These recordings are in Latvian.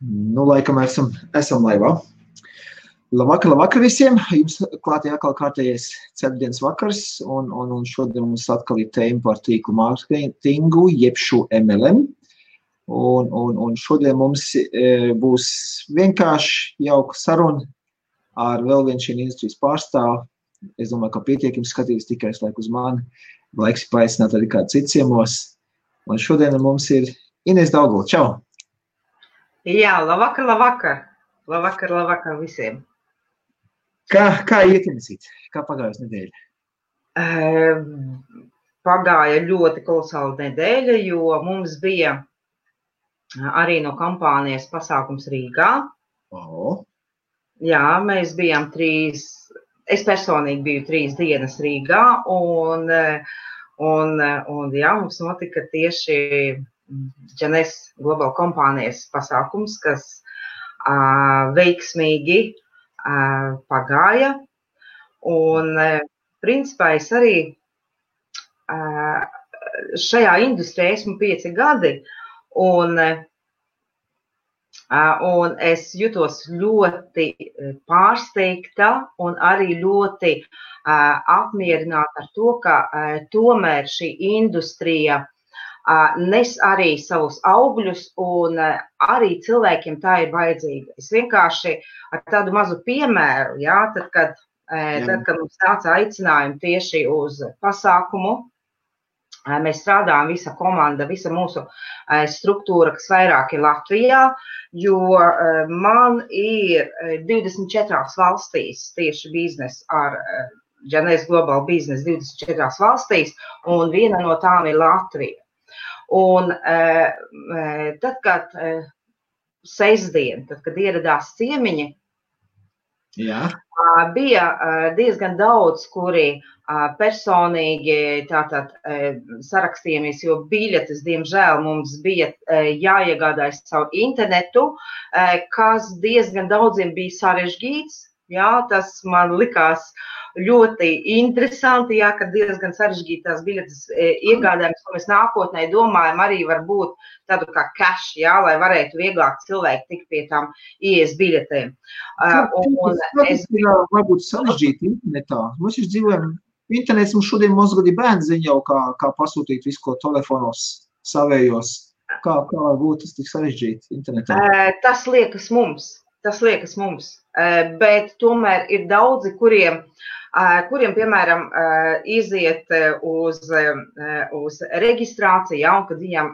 Nu, laikam esam laivā. Labvakar visiem. Jums klātie atkal kārtējais ceturtdienas vakars, un šodien mums atkal ir tēma par tīklu mārketingu, jeb šo MLM. Un šodien mums būs vienkārši jauka saruna ar vēl vienu šī industrijas pārstāvu. Es domāju, ka pietiekami skatīs tikai uz mani. Laiks paaicināt arī kādu citu ciemos. Un šodien mums ir Inese Daugava. Čau! Jā, labvakar. Labvakar visiem. Kā iet, Inesīt? Kā pagājusi nedēļa? Pagāja ļoti kolosāla nedēļa, jo mums bija arī no kampānijas pasākums Rīgā. Jā, mēs bijām es personīgi biju 3 dienas Rīgā, un jā, mums notika tieši Džanes Global kompānijas pasākums, kas veiksmīgi pagāja. Un principā es arī šajā industrijā esmu 5 gadi, un es jutos ļoti pārsteigta un arī ļoti apmierināta ar to, ka tomēr šī industrija nes arī savus augļus, un arī cilvēkiem tā ir vajadzīga. Es vienkārši ar tādu mazu piemēru, jā, tad, kad mums nāca aicinājumi tieši uz pasākumu, mēs strādājam, visa komanda, visa mūsu struktūra, kas vairāk ir Latvijā, jo man ir 24 valstīs tieši biznes ar Džanes Global Business 24 valstīs, un viena no tām ir Latvija. Un tad, kad sestdien, kad ieradās ciemiņi, bija diezgan daudz, kuri personīgi sarakstījāmies, jo biļetes, diemžēl, mums bija jāiegādājas caur internetu, kas diezgan daudziem bija sarežģīts. Jā, tas man likās ļoti interesanti, jā, ka diezgan sarežģītās biļetes iegādājamies, ko mēs nākotnē domājam, arī var būt tādu kā cash, jā, lai varētu vieglāk cilvēki tikt pie tām IES biļetēm. Tas ir varbūt sarežģīti internetā. Mēs jau dzīvojam, internets mums šodien mazgadi bērni zina jau, kā pasūtīt visu, ko telefonos savējos. Kā varbūt tas tik sarežģīti internetā? Tas liekas mums. Bet tomēr ir daudzi, kuriem piemēram, iziet uz reģistrāciju, ja, un kad viņam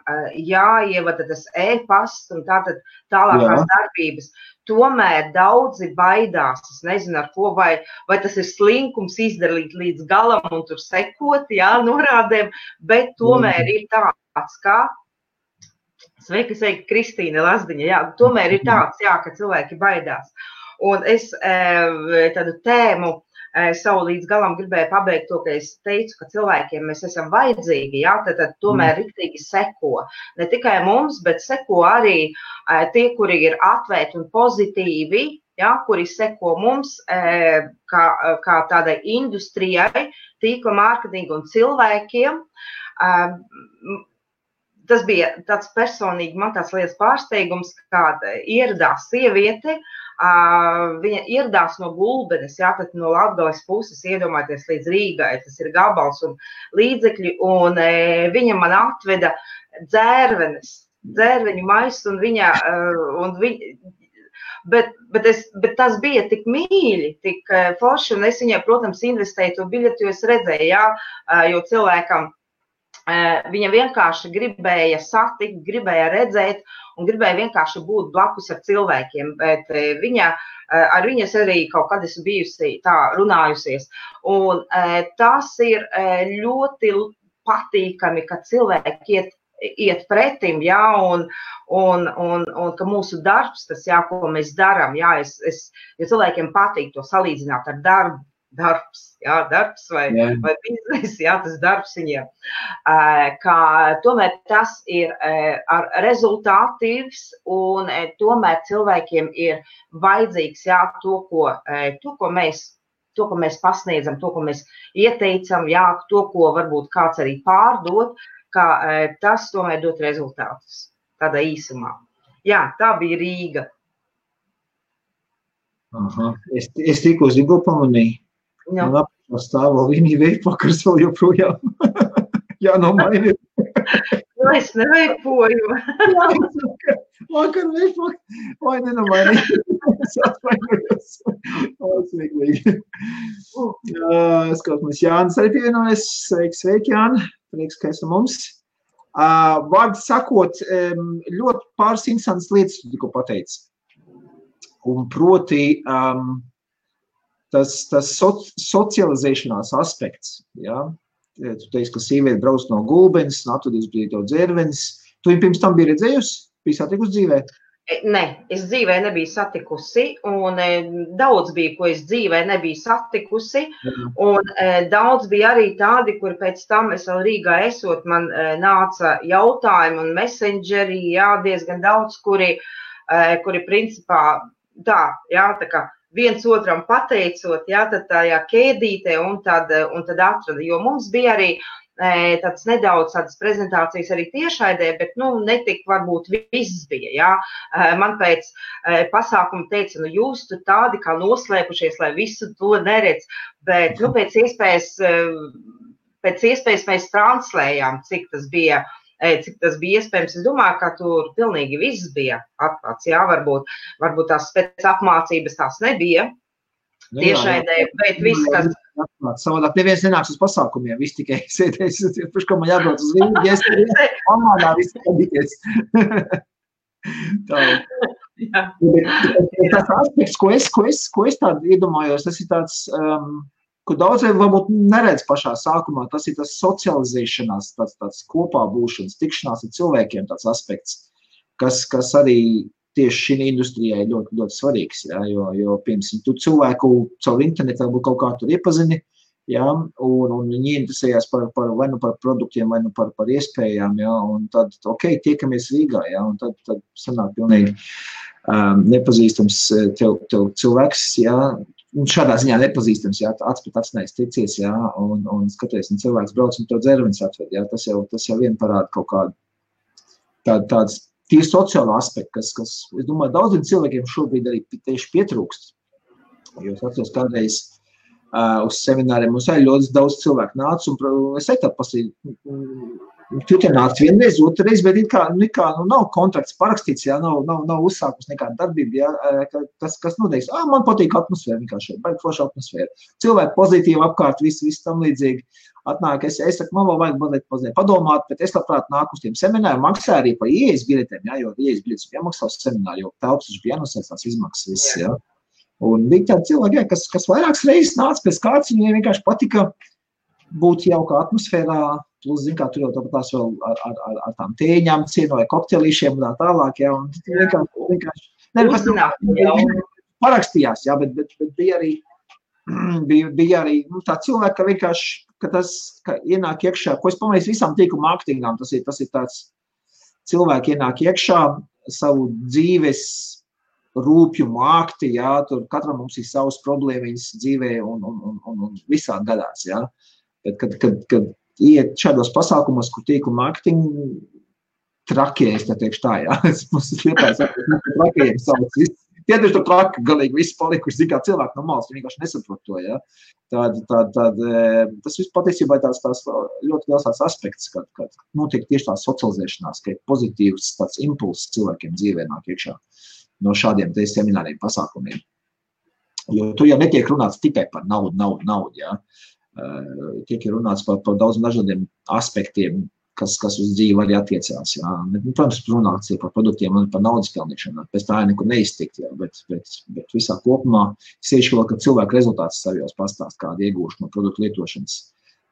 jāievada tas e-pasts un tātad tālākās darbības. Tomēr daudzi baidās, es nezinu ar ko, vai tas ir slinkums izdarīt līdz galam un tur sekot, jā, norādēm, bet tomēr ir tāds, kā Sveika, Kristīne Lazdiņa, jā, tomēr ir tāds, jā, ka cilvēki baidās. Un es tādu tēmu savu līdz galam gribēju pabeigt to, ka es teicu, ka cilvēkiem mēs esam vajadzīgi, jā, tad tomēr riktīgi seko. Ne tikai mums, bet seko arī tie, kuri ir atvērti un pozitīvi, jā, kuri seko mums kā tādai industrijai, tīkla mārketingu un cilvēkiem. Tas bija tāds personīgi man tāds liels pārsteigums, kāda ieradās sieviete, viņa ieradās no Gulbenes, jā, tad no Latgales puses iedomājieties līdz Rīgai, tas ir gabals un līdzekļi, un viņa man atveda dzērveņu maisu, bet tas bija tik mīļi, tik forši, un es viņai, protams, investēju to biļeti, jo es redzēju, jā, jo cilvēkam viņa vienkārši gribēja satikt, gribēja redzēt un gribēja vienkārši būt blakus ar cilvēkiem, bet ar viņas arī kaut kad esmu bijusi tā runājusies. Un tas ir ļoti patīkami, ka cilvēki iet pretim, jā, un ka mūsu darbs, tas, jā, ko mēs daram, jā, jo cilvēkiem patīk to salīdzināt ar darbu. Darbs vai biznes, jā, tas darbs viņiem. Tomēr tas ir rezultātīvs un tomēr cilvēkiem ir vajadzīgs, jā, to, ko mēs pasniedzam, to, ko mēs ieteicam, jā, to, ko varbūt kāds arī pārdod, ka tas tomēr dot rezultātus tādā īsumā. Jā, tā bija Rīga. Aha. Es tikko zinu, ko pamanīju. Nu. Man apakšā stāv vēl Vinija veipakars vēl joprojām. Jā, no maini. Nu, es neveipoju. Vakar veipakars. Vai ne no maini. Es atvainojos. Smieklīgi. Skatāmies, Jānis arī pievienojas. Sveiki, Jāni. Prieks, ka esi mums. Vārdu sakot, ļoti pāris interesantas lietas tu tikko pateici. Un proti tas socializēšanās aspekts, ja? Tu teici, ka sīvieti brauc no Gulbenes, atvedīs bija tev dzērvenis. Tu viņu pirms tam bija redzējusi? Bija satikusi dzīvē? Nē, es dzīvē nebiju satikusi, un daudz bija, ko es dzīvē nebiju satikusi, un daudz bija arī tādi, kur pēc tam es vēl Rīgā esot, man nāca jautājumi un messengeri, jā, diezgan daudz, kuri principā tā, jā, tā kā viens otram pateicot, jā, tad tajā ķēdītē un tad atrada, jo mums bija arī tāds nedaudz tādas prezentācijas arī tiešraidē, bet, netik varbūt viss bija, jā. Man pēc pasākuma teica, jūs tur tādi kā noslēpušies, lai visu to neredz, bet, pēc iespējas mēs translējām, cik tas bija iespējams. Es domāju, ka tur pilnīgi viss bija atklāts, jā, varbūt tās pēc apmācības tās nebija tiešraidē, bet viss, kas... Savādāk neviens nenāks uz pasākumiem, viss tikai sēdēs, pirms, ko man jābrauc uz Rīgu, ja es pamādā viss padīties. Tā. Tas aspekts, ko es tādu iedomājos, tas ir tāds, ko daudziem varbūt neredz pašā sākumā, tas ir tas socializēšanās, tāds kopā būšanas, tikšanās ar cilvēkiem tāds aspekts, kas arī tieši šī industrijai ļoti, ļoti svarīgs, jā, jo piemēram, tu cilvēku caur internetu varbūt kaut kā tur iepazini, jā, un viņi interesējās vai nu par produktiem, vai nu par iespējām, jā, un tad, tiekamies Rīgā, jā, un tad sanāk pilnīgi nepazīstams tev cilvēks, jā, un šādā ziņā nepazīstams, jā, acs pret acs ticies, jā, un skaties, un cilvēks brauc un tev dzervenis atved, jā, tas jau vien parāda kaut kādu tāds tīri sociālo aspektu, kas, es domāju, daudziem cilvēkiem šobrīd arī tieši pietrūkst. Jo es atceros kādreiz uz semināriem, mums arī ļoti daudz cilvēku nāca, un es tādu pasīju, tu te nāc vienreiz, otrreiz, bet nav kontrakts parakstīts, jā, nav uzsākus nekāda darbība, jā, kas noteiks, man patīk atmosfēra, vienkārši, baigi forša atmosfēra. Cilvēki pozitīvi apkārt, viss tam līdzīgi. Atnāk, es saku, man vēl vajag mazliet padomāt, bet es labprāt nāku uz tiem semināriem, maksāju arī par ieejas biļetēm, jā, jo ieejas biļetes bija jāmaksā uz semināru, jo telpas bija jānosēs tās izmaksas viss, jā. Un bija tādi cilvēki, jā, kas vairākas reizes nāca pēc kāds, viņiem vienkārši patika būt jauka atmosfērā, plus, zin kā, tur jau tāpatās vēl ar tām tēņām cienoja koktelīšiem un tā tālāk, jā, un vienkārši parakstījās, jā, bet bija arī tā cilvēka, ka vienkārši, ka ienāk iekšā, ko es pamanīju visām tīklu mārketingām, tas ir tāds cilvēki ienāk iekšā savu dzīves rūpju mākti, jā, tur katram mums ir savas problēmiņas dzīvē un visādi gadās, jā. Bet, kad iet šādos pasākumos, kur tīklu mārketingu trakie, es teikšu tā, jā, mums ir lietājis, trakajiem savas viss. Tie taču tur traki galīgi viss palikuši, zin kā cilvēki no malas, viņi vienkārši nesaprot to, ja. Tas viss patiesībā ir tās ļoti liels tās aspekts, kad notiek tieši tā socializēšanās, ka ir pozitīvs tāds impulss cilvēkiem dzīvē nāk iekšā no šādiem te semināriem pasākumiem. Jo tu jau netiek runāts tikai par naudu, ja. Tiek runāts par daudz dažādiem aspektiem, kas uz dzīvi arī attiecās, jā. Protams, runāts ir par produktiem un par naudas pelnīšanu, pēc tā nekur neiztikt, jā, bet visā kopumā sevišķi vēl, ka cilvēku rezultāts savos pastāst, kādu iegūšu no produktu lietošanas.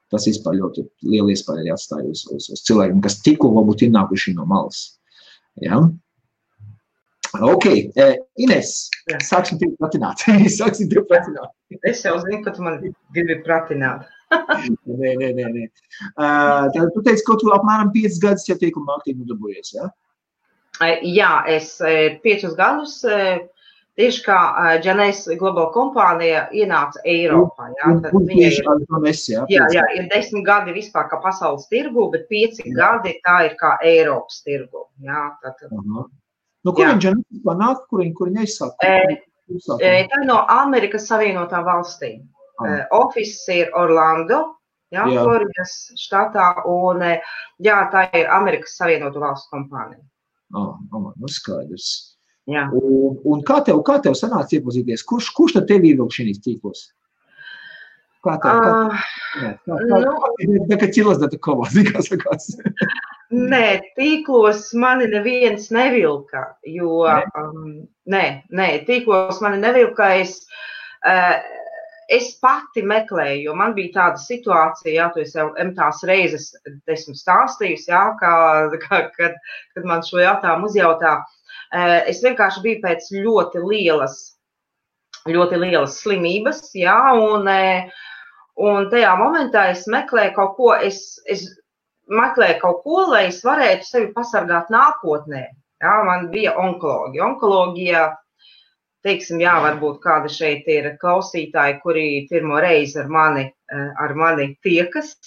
Tas vispār ļoti liela iespēja arī atstāja uz cilvēkiem, kas tikko varbūt ir nākuši no malas. Jā. Ok, Ines, sāksim tevi pratināt. Es jau zinu, ka tu man gribi pratināt. Nē. Tad tu teici, ka tu apmēram 5 gadus jau tīklu mārketingu darbojies, jā? Jā, es 5 gadus, tieši kā Janēs Global kompānija ienāca Eiropā, jā. Jā, ir 10 gadi vispār kā pasaules tirgu, bet 5 gadi tā ir kā Eiropas tirgu, jā. No kurien ģenētiskā nāk, kurien aizsāk? Tā no Amerikas Savienotām valstīm. Office ir Orlando, Floridas štatā, un tā ir Amerikas Savienotu valstu kompānija. Nu skaidrs. Jā. Un kā tev sanāca iepazīties? Kurš tad tev ievilk šīs tīklos? Kā tev? Kā sakās? Nē, tīklos mani neviens nevilka, jo, tīklos mani nevilka, es pati meklēju, jo man bija tāda situācija, tu esi jau tās reizes esmu stāstījusi, kad man šo jautājumu uzjautā, es vienkārši biju pēc ļoti lielas slimības, un tajā momentā es meklēju kaut ko, lai es varētu sevi pasargāt nākotnē. Man bija onkoloģija. Teiksim, varbūt kāda šeit ir klausītāji, kuri pirmo reizi ar mani tiekas,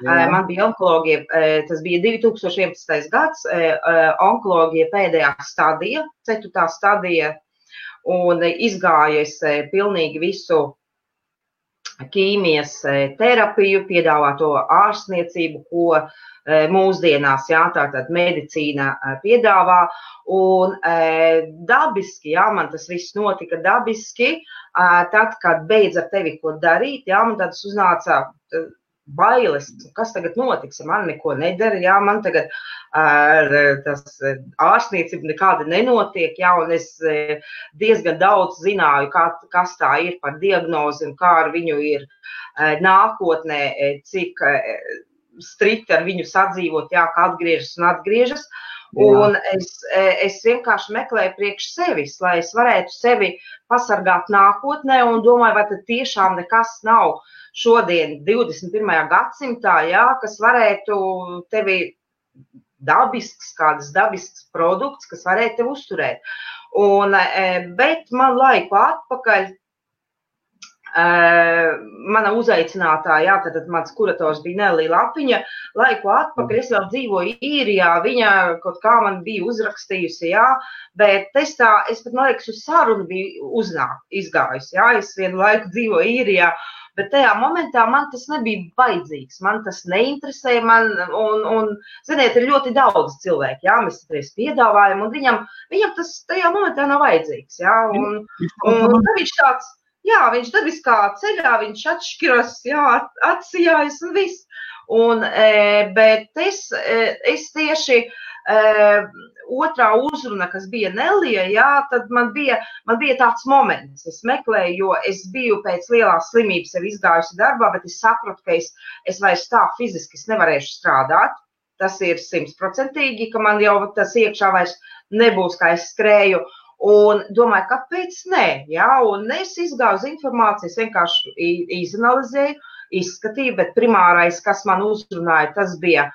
Man bija onkoloģija, tas bija 2011. gads, onkoloģija pēdējā stadija, 4. stadija, un izgāju es pilnīgi visu ķīmijas terapiju, piedāvāto ārstniecību, ko mūsdienās, tātad medicīna piedāvā, un dabiski, man tas viss notika dabiski, tad, kad beidz ar tevi ko darīt, man tad uznāca bailes, kas tagad notiks, ja man neko nedara, man tagad tas ārstniecība nekāda nenotiek, un es diezgan daudz zināju, kas tā ir par diagnozi un kā ar viņu ir nākotnē, cik strikti ar viņu sadzīvot, ka atgriežas. Un es vienkārši meklēju priekš sevis, lai es varētu sevi pasargāt nākotnē un domāju, vai tad tiešām nekas nav šodien 21. gadsimtā, kas varētu tevi kādas dabisks produkts, kas varētu tevi uzturēt. Bet man laiku atpakaļ mana uzaicinātāja, tātad mans kurators bija Nelija Lapiņa, laiku atpakaļ, es vēl dzīvoju Īrijā, viņa kaut kā man bija uzrakstījusi, bet es pat, man liekas, uz sarunu biju izgājusi, es vienu laiku dzīvoju Īrijā, bet tajā momentā man tas nebija vajadzīgs, man tas neinteresēja, un ziniet, ir ļoti daudz cilvēki, mēs patreiz piedāvājam, un viņam tas tajā momentā nav vajadzīgs, un tad viņš tāds, viņš dabiskā ceļā, viņš atšķiras, atsijājas un viss. Bet es tieši otrā uzruna, kas bija Nelija, tad man bija tāds moments. Es meklēju, jo es biju pēc lielās slimības jau izgājusi darbā, bet es sapratu, ka es vairs tā fiziski nevarēšu strādāt. Tas ir 100%, ka man jau tas iekšā vairs nebūs, kā es skrēju. Un domāju, kāpēc nē, un es izgāju uz informāciju, es vienkārši izanalizēju, izskatīju, bet primārais, kas man uzrunāja, tas bija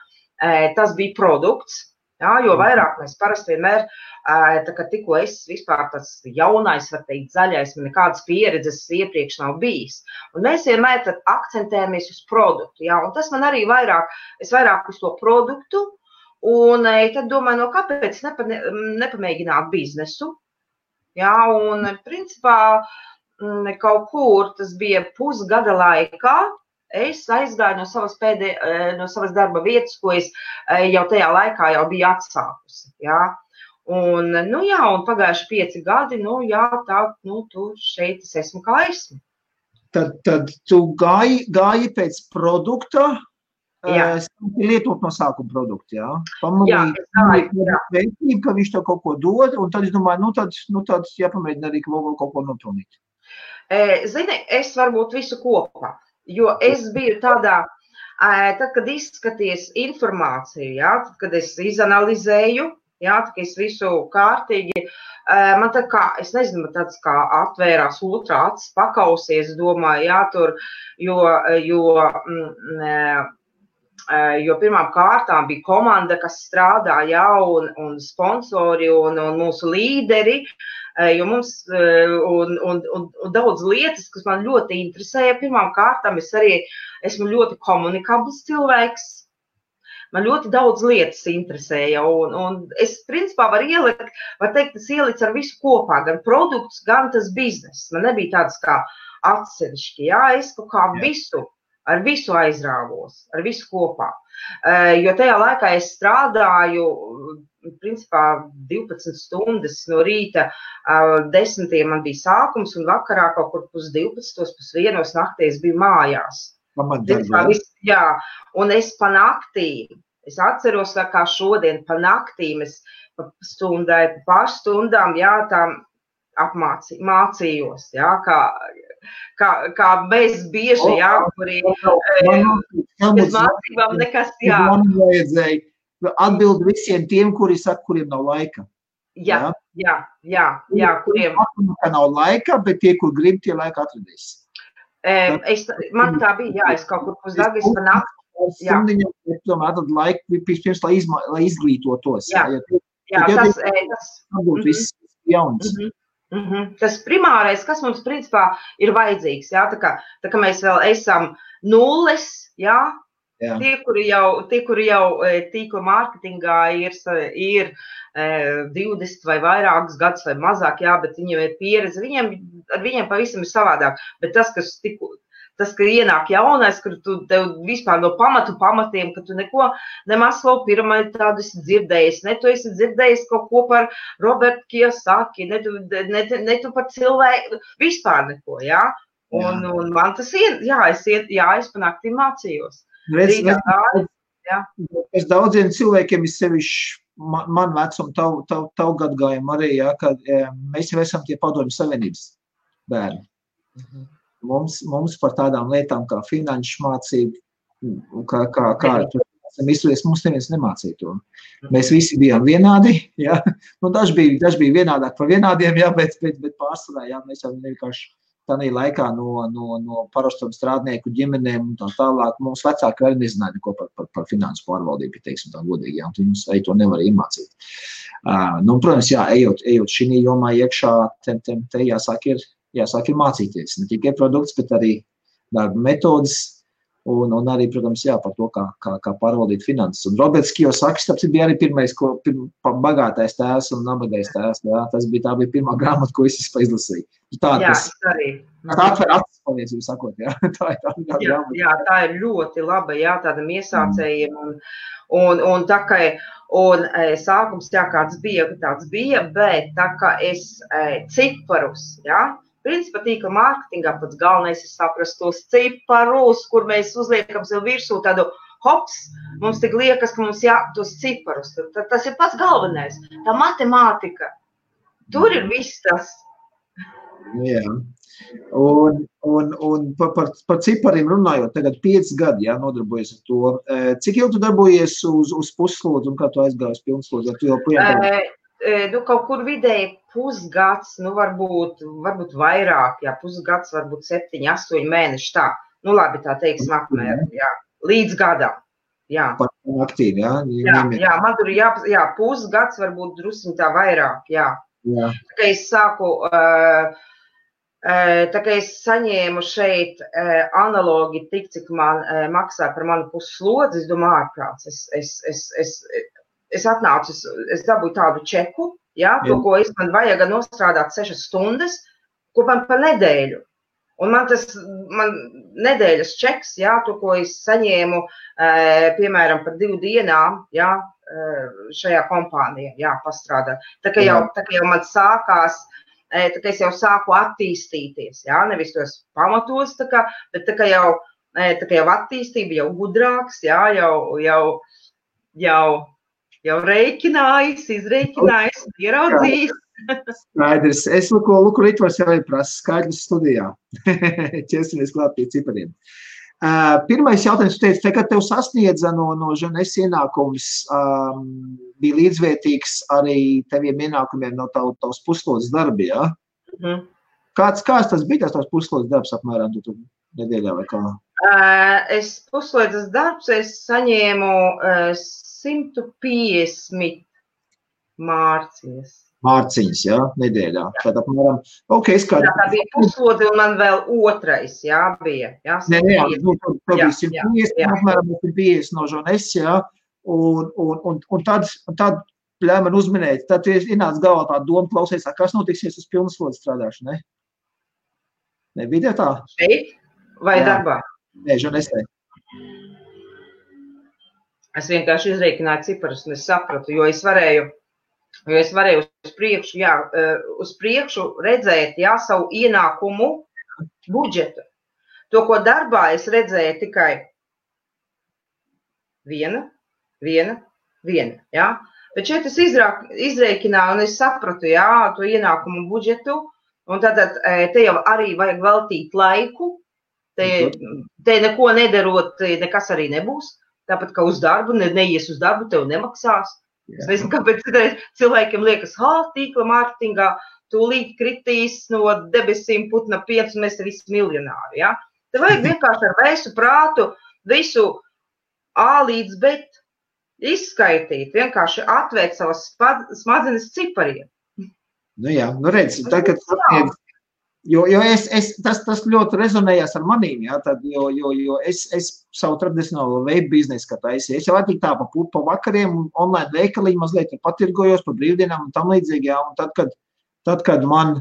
produkts, jo vairāk mēs parasti vienmēr, kad tikko es vispār tas jaunais, var teikt, zaļais, man nekādas pieredzes iepriekš nav bijis. Un mēs vienmēr tad akcentējamies uz produktu, un tas man arī es vairāk uz to produktu, un tad domāju, kāpēc nepamēģināt biznesu. Un principā kaut kur tas bija pusgada laikā, es aizgāju no savas darba vietas, ko es jau tajā laikā jau biju atsākusi. Un pagājuši 5 gadi, tur šeit es esmu kā esmu. Tad tu gāji pēc produkta, lietot no sākuma produktu, Pamanīju, ka viņš tev kaut ko dod, un tad es domāju, tad jāpamēģina arī kaut ko nopelnīt. Zini, es varbūt visu kopā, jo es biju tādā, tad, kad izskaties informāciju, tad, kad es izanalizēju, tad, kad es visu kārtīgi, man tā kā, es nezinu, tāds kā atvērās otrā acis pakausies, domāju, tur, jo pirmām kārtām bija komanda, kas strādā, un sponsori, un mūsu līderi, jo mums, un daudz lietas, kas man ļoti interesēja, pirmām kārtām es arī esmu ļoti komunikabls cilvēks, man ļoti daudz lietas interesēja, un es principā var teikt, es ielicu ar visu kopā, gan produkts, gan tas bizness. Man nebija tāds kā atsevišķi, jā, es kaut kā ar visu aizrāvos, ar visu kopā. Jo tajā laikā es strādāju, principā 12 stundas no rīta, 10 man bija sākums, un vakarā kaut kur 12, 1 naktī es biju mājās. Jā, un es pa naktīm, es atceros, kā šodien pa naktīm, es pa stundai, pa pārstundām, jā, tām mācījos, jā, kā mēs bieži, jā, kuri bez mācībām nekas, jā. Man vajadzēja atbild visiem tiem, kuri saka, kuriem nav laika. Jā, kuriem. Ka nav laika, bet tie, kur grib, tie laika atradīs. Man tā bija, jā, es kaut kur pusdagis pa nakti. Stundiņam, tomēr atrast laiku, pirms, lai izglītotos. Tas viss jauns. Tas primārais, kas mums principā ir vajadzīgs, jā, tā kā mēs vēl esam nulles, jā, tie, kuri jau tīkla mārketingā ir 20 vai vairākus gadus vai mazāk, jā, bet viņiem ir pieredze, ar viņiem pavisam ir savādāk, bet tas, ka ienāk jaunais, kur tev vispār no pamatiem, ka tu neko Maslow piramīdu tādu esi dzirdējis, ne tu esi dzirdējis kaut ko par Robertu Kiyosaki, ne tu par cilvēku, vispār neko, jā. Un man tas es pa naktīm mācījos. Es daudziem cilvēkiem ir sevišķi man vecumu, tavu gadgājumu arī, jā, kad mēs jau esam tie padomju savienības bērni. Mums par tādām lietām kā finanšu mācība, kā esam izturēs, mums neviens nemācīja to. Mēs visi bijām vienādi, jā. Nu, daži bija vienādāk par vienādiem, jā, bet pārsvarā, jā, mēs jau vienkārši tādā laikā no parastam strādnieku ģimenēm un tā tālāk. Mums vecāki arī nezināja neko par finansu pārvaldību, teiksim tā godīgi, jā, un viņi mums arī to nevar iemācīt. Protams, jā, ejot šī jomā iekšā, te jāsāk ir mācīties, ne tikai produkts, bet arī darba metodas un arī, protams, jā, par to, kā pārvaldīt finanses. Un Roberts Kiyosaki, tāpēc bija arī pirmais, bagātais tēvs un nabagais tēvs, jā, tā bija pirmā grāmata, ko es izlasīju. Tā atver acis, palīdzību sakot, jā. Jā, tā ir ļoti laba, jā, tādam iesācējiem un tā kā, sākums, jā, kāds bija, bet tā kā es ciparus, jā, principā tīkla mārketingā pats galvenais ir saprast tos ciparus, kur mēs uzliekam sev virsū tādu hops, mums tik liekas, ka mums tos ciparus. Tas ir pats galvenais. Tā matemātika. Tur ir viss tas. Jā. Un par cipariem runājot, tagad 5 gadi, jā, nodarbojies ar to. Cik ilgi tu darbojies uz puslodzi un kā tu aizgāji uz pilnslodzi? Kaut kur vidēji pusgads, varbūt vairāk, jā, pusgads, varbūt 7, 8 mēneši, tā. Labi, tā teiksim apmēram, jā, līdz gadam, jā. Aktīvi, jā? Jā, man tur pusgads, varbūt drusciņ tā vairāk, jā. Tā kā es sāku, tā kā es saņēmu šeit analogi tik, cik man maksā par manu pusslodzi, es domāju, ārprāts, es atnācu, es dabūju tādu čeku, jā, to, ko man vajag nostrādāt 6 stundas, ko man pa nedēļu. Un man nedēļas čeks, jā, to, ko es saņēmu, piemēram, par 2 dienām, jā, šajā kompānijā, jā, pastrādāt. Tā kā jau man sākās, tā kā es jau sāku attīstīties, jā, nevis tos pamatos, bet tā kā jau attīstība, jau gudrāks, jā, jau rēķinājis, izrēķinājis, ieraudzījis. Skaidrs. Es Luku Ritvars jau prasa skaidrs studijā. Ķersimies klāt pie cipariem. Pirmais jautājums, tu teici, kad tev sasniedza no Žanes ienākums, bija līdzvērtīgs arī teviem ienākumiem no tavs puslodes darbi, jā? Kāds tas bija tavs puslodes darbs apmēram nedēļā vai kā? Puslodes darbs es saņēmu 150 mārciņas. Mārciņas, jā, nedēļā. Tad apmēram, tā bija puslode un man vēl otrais, jā, bija. Jā, tu bija 150, apmēram 150 no Žanes, jā, Un tad ļauj man uzminēt, tad ienāca galvā tā doma klausies, kas notiksies uz pilnslodzes strādāšanu, ne? Ne, bija tā? Šeit vai darbā? Nē, žurnālistē. Es vienkārši izreikināju ciparus un es sapratu, jo es varēju uz priekšu redzēt, savu ienākumu budžetu. To, ko darbā es redzēju tikai viena, Bet šeit es izreikināju un es sapratu, to ienākumu budžetu, un tad te jau arī vajag veltīt laiku, te neko nedarot, nekas arī nebūs. Tāpat kā uz darbu, neies uz darbu, tev nemaksās. Es nezinu, kāpēc cilvēkiem liekas, tīkla mārketingā tūlīt kritīs no debesīm putna piens un mēs te visi miljonāri. Ja? Te vajag vienkārši ar vēsu prātu visu A līdz B izskaitīt, vienkārši atvērt savas smadzenes cipariem. Nu jā, redz, tagad tas ļoti rezonējās ar manīm, jo es savu tradicionālo web biznesu, kā taisīju, es jau attīk tā pa vakariem online veikaliņu mazliet patirgojos pa brīvdienām un tam līdzīgi, un tad, kad man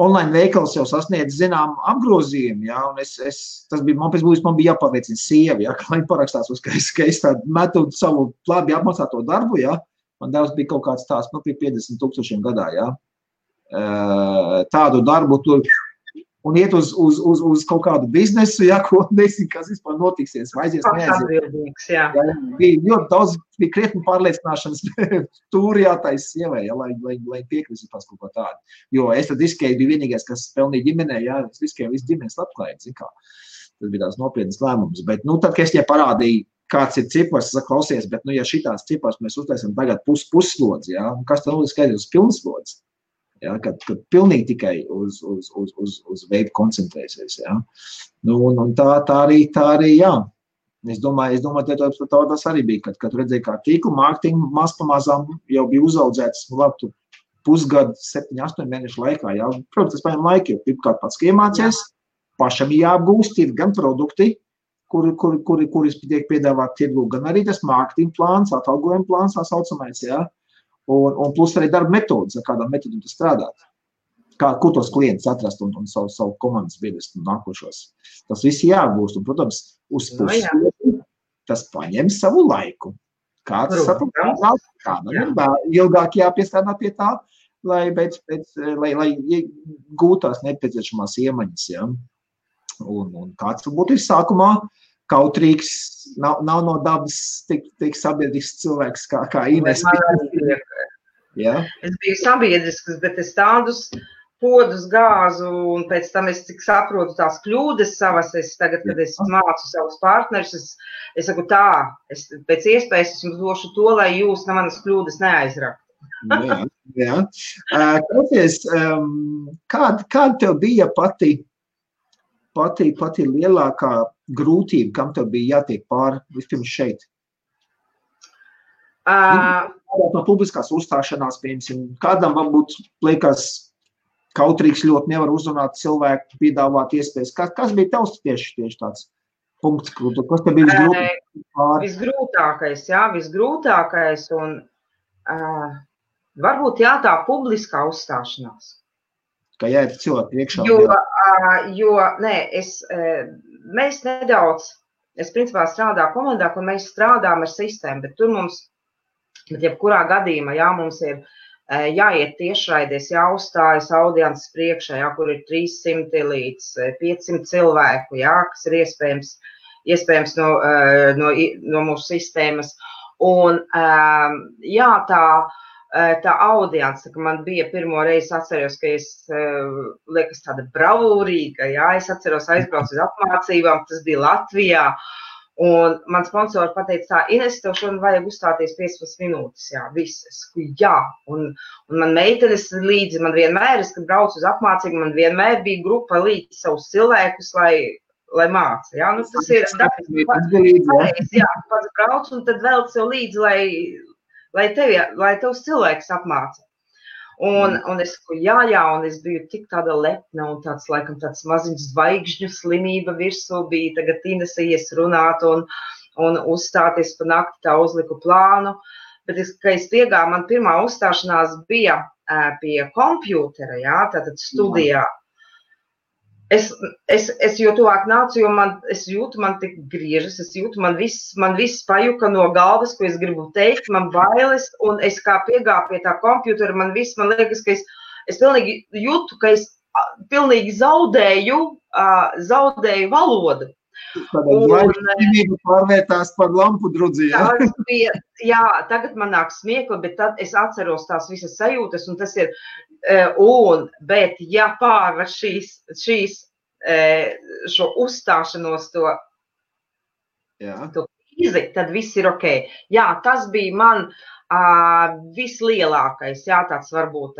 online veikals jau sasniedz zinām apgrozījumu, un man bija jāpārliecina sievi, ka lai parakstās, ka es tādu metu savu labi apmaksāto darbu, man devs bija kaut kāds tās, pie 50,000 gadā, tādu darbu tur un iet uz kaut kādu biznesu, ko nezinu, kas vispār notiksies, aizies, neaizies. Bija ļoti daudz, bija krietni pārliecināšanas tūri jātais sievai, lai piekrist pēc kaut ko tādu. Jo es tad riskēju, bija vienīgais, kas pelnīja ģimenē, es riskēju visu ģimenes labklājību, Tas bija tās nopietnas lēmums, bet, tad, kad es tie parādīju, kāds ir cipars, es saku, klausies, bet, ja šitās cipars mēs uztaisam tagad puslodzi, kas tad skaidrs uz pilnslodzi? Kad pilnīgi tikai uz veidu koncentrēsies. Un tā arī, Es domāju, tas arī bija, kad redzēju, kā tīklu mārketingu maz pamazām jau bija uzaudzēts, pusgadu, 7-8 mēnešu laikā. Protams, tas paņem laiku, jo pirmkārt pats iemācies, pašam jāapgūst, ir gan produkti, kuri tiek piedāvāt tirgu, gan arī tas mārketinga plāns, atalgojuma plāns, tā saucamais, Un plus arī darba metodas, ar kādām metodām tu strādāt. Kur tos klientus atrast un savu komandas biedrus nākošos. Tas viss jāgūst. Un, protams, uz puslodi tas paņem savu laiku. Kāds saprotams, kādam ir ilgāk jāpiestrādā pie tā, lai gūtās nepieciešamās iemaņas. Un kāds varbūt ir sākumā kautrīgs, nav no dabas tik sabiedrisks cilvēks kā Ines. Es biju sabiedrisks, bet es tādus podus gāzu, un pēc tam es cik saprotu tās kļūdas savas, tagad, kad es mācu savus partnerus, es saku pēc iespējas es jums došu to, lai jūs manas kļūdas neaizraktu. Klausies, kāda tev bija pati lielākā grūtība, kam tev bija jātiek pāri vispirms šeit? No publiskās uzstāšanās, piemēram, kādam varbūt liekas kautrīgs ļoti nevar uzrunāt cilvēku, piedāvāt iespējas. Kas bija tavs tieši tāds punkts, kas tev bija visgrūtākais? Visgrūtākais un varbūt tā publiskā uzstāšanās. Kā jāiet cilvēku priekšā. Mēs nedaudz, es principā strādāju komandā, kur mēs strādājam ar sistēmu, bet tur mums, jebkurā gadījumā, mums ir jāiet tiešraidēs, jāuzstājas audiences priekšā, kur ir 300 līdz 500 cilvēku, kas ir iespējams no mūsu sistēmas. Un tā audience, ka man bija pirmo reizi atceros, ka es liekas tāda bravūrīga, es atceros aizbraucu uz apmācībām, tas bija Latvijā, un man sponsori pateica Ines, tev šodien vajag uzstāties 15 minūtes, viss, un man meitenes līdzi, man vienmēr, kad braucu uz apmācību, man vienmēr bija grupa līdzi savus cilvēkus, lai māca, tas ir pareizi, pats brauc, un tad vēl sev līdzi, lai tevs cilvēks apmāca. Un es saku, un es biju tik tāda lepna un tāds maziņš zvaigžņu slimība virsū bija, tagad Inese ies runāt, un un uzstāties pa nakti, tā uzliku plānu. Bet, kad es piegāju, man pirmā uzstāšanās bija pie kompjūtera, jā, tātad studijā. Es jo tuvāk nācu, jo es jūtu, man tik griežas, es jūtu, man viss pajuka no galvas, ko es gribu teikt, man bailes, un es kā piegāju pie tā kompjūtera, man liekas, ka es pilnīgi jūtu, ka es pilnīgi zaudēju valodu. Tādēļ pārvērtās par lampu drudzi, jā? Jā, tagad man nāk smiekli, bet tad es atceros tās visas sajūtas, un tas ir, bet ja pārvar šo uzstāšanos to krīzi, tad viss ir ok. Jā, tas bija man vislielākais, jā, tāds varbūt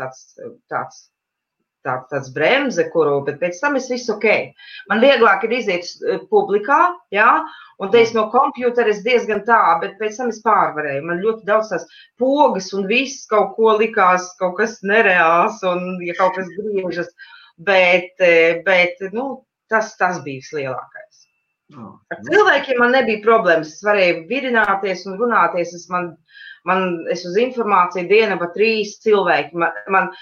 tāds bremze, bet pēc tam es visu ok. Man vieglāk ir iziet publikā, jā, un te es no kompjūtera es diezgan tā, bet pēc tam es pārvarēju. Man ļoti daudz tās pogas un viss kaut ko likās, kaut kas nereāls un ja kaut kas griežas, bet tas bija vislielākais. Ar cilvēkiem man nebija problēmas, es varēju virināties un runāties, es uz informāciju diena pa 3 cilvēki, man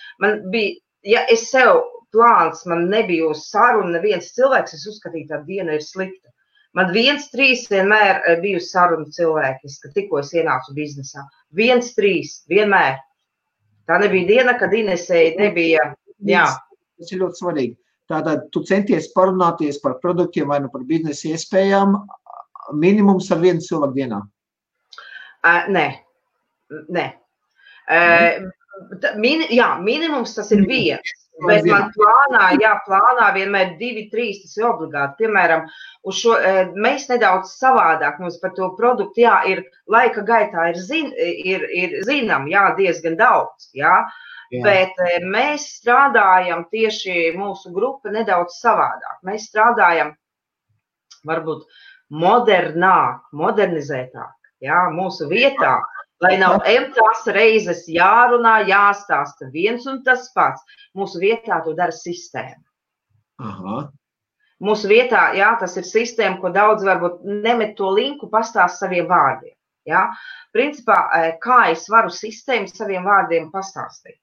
bija, ja es sev plāns, man nebija uz sarunu neviens cilvēks, es uzskatīju, tā diena ir slikta. Man 1-3 vienmēr bija uz sarunu cilvēki, kad tikko es ienācu biznesā. 1-3, vienmēr. Tā nebija diena, kad Inesei nebija, jā. Tas ir ļoti svarīgi. Tātad tu centies parunāties par produktiem vai par biznesa iespējām minimums ar 1 cilvēku dienā? Nē. Minimums tas ir 1, bet man plānā vienmēr 2-3, tas ir obligāti. Piemēram, mēs nedaudz savādāk mums par to produktu, jā, ir laika gaitā ir zinām, jā, diezgan daudz, jā, bet mēs strādājam tieši mūsu grupa nedaudz savādāk. Mēs strādājam varbūt modernizētāk, jā, mūsu vietā. Lai nav tās reizes jārunā, jāstāsta viens un tas pats. Mūsu vietā to dara sistēma. Aha. Mūsu vietā, jā, tas ir sistēma, ko daudz varbūt nemet to linku, pastāst saviem vārdiem. Jā. Principā, kā es varu sistēmu saviem vārdiem pastāstīt?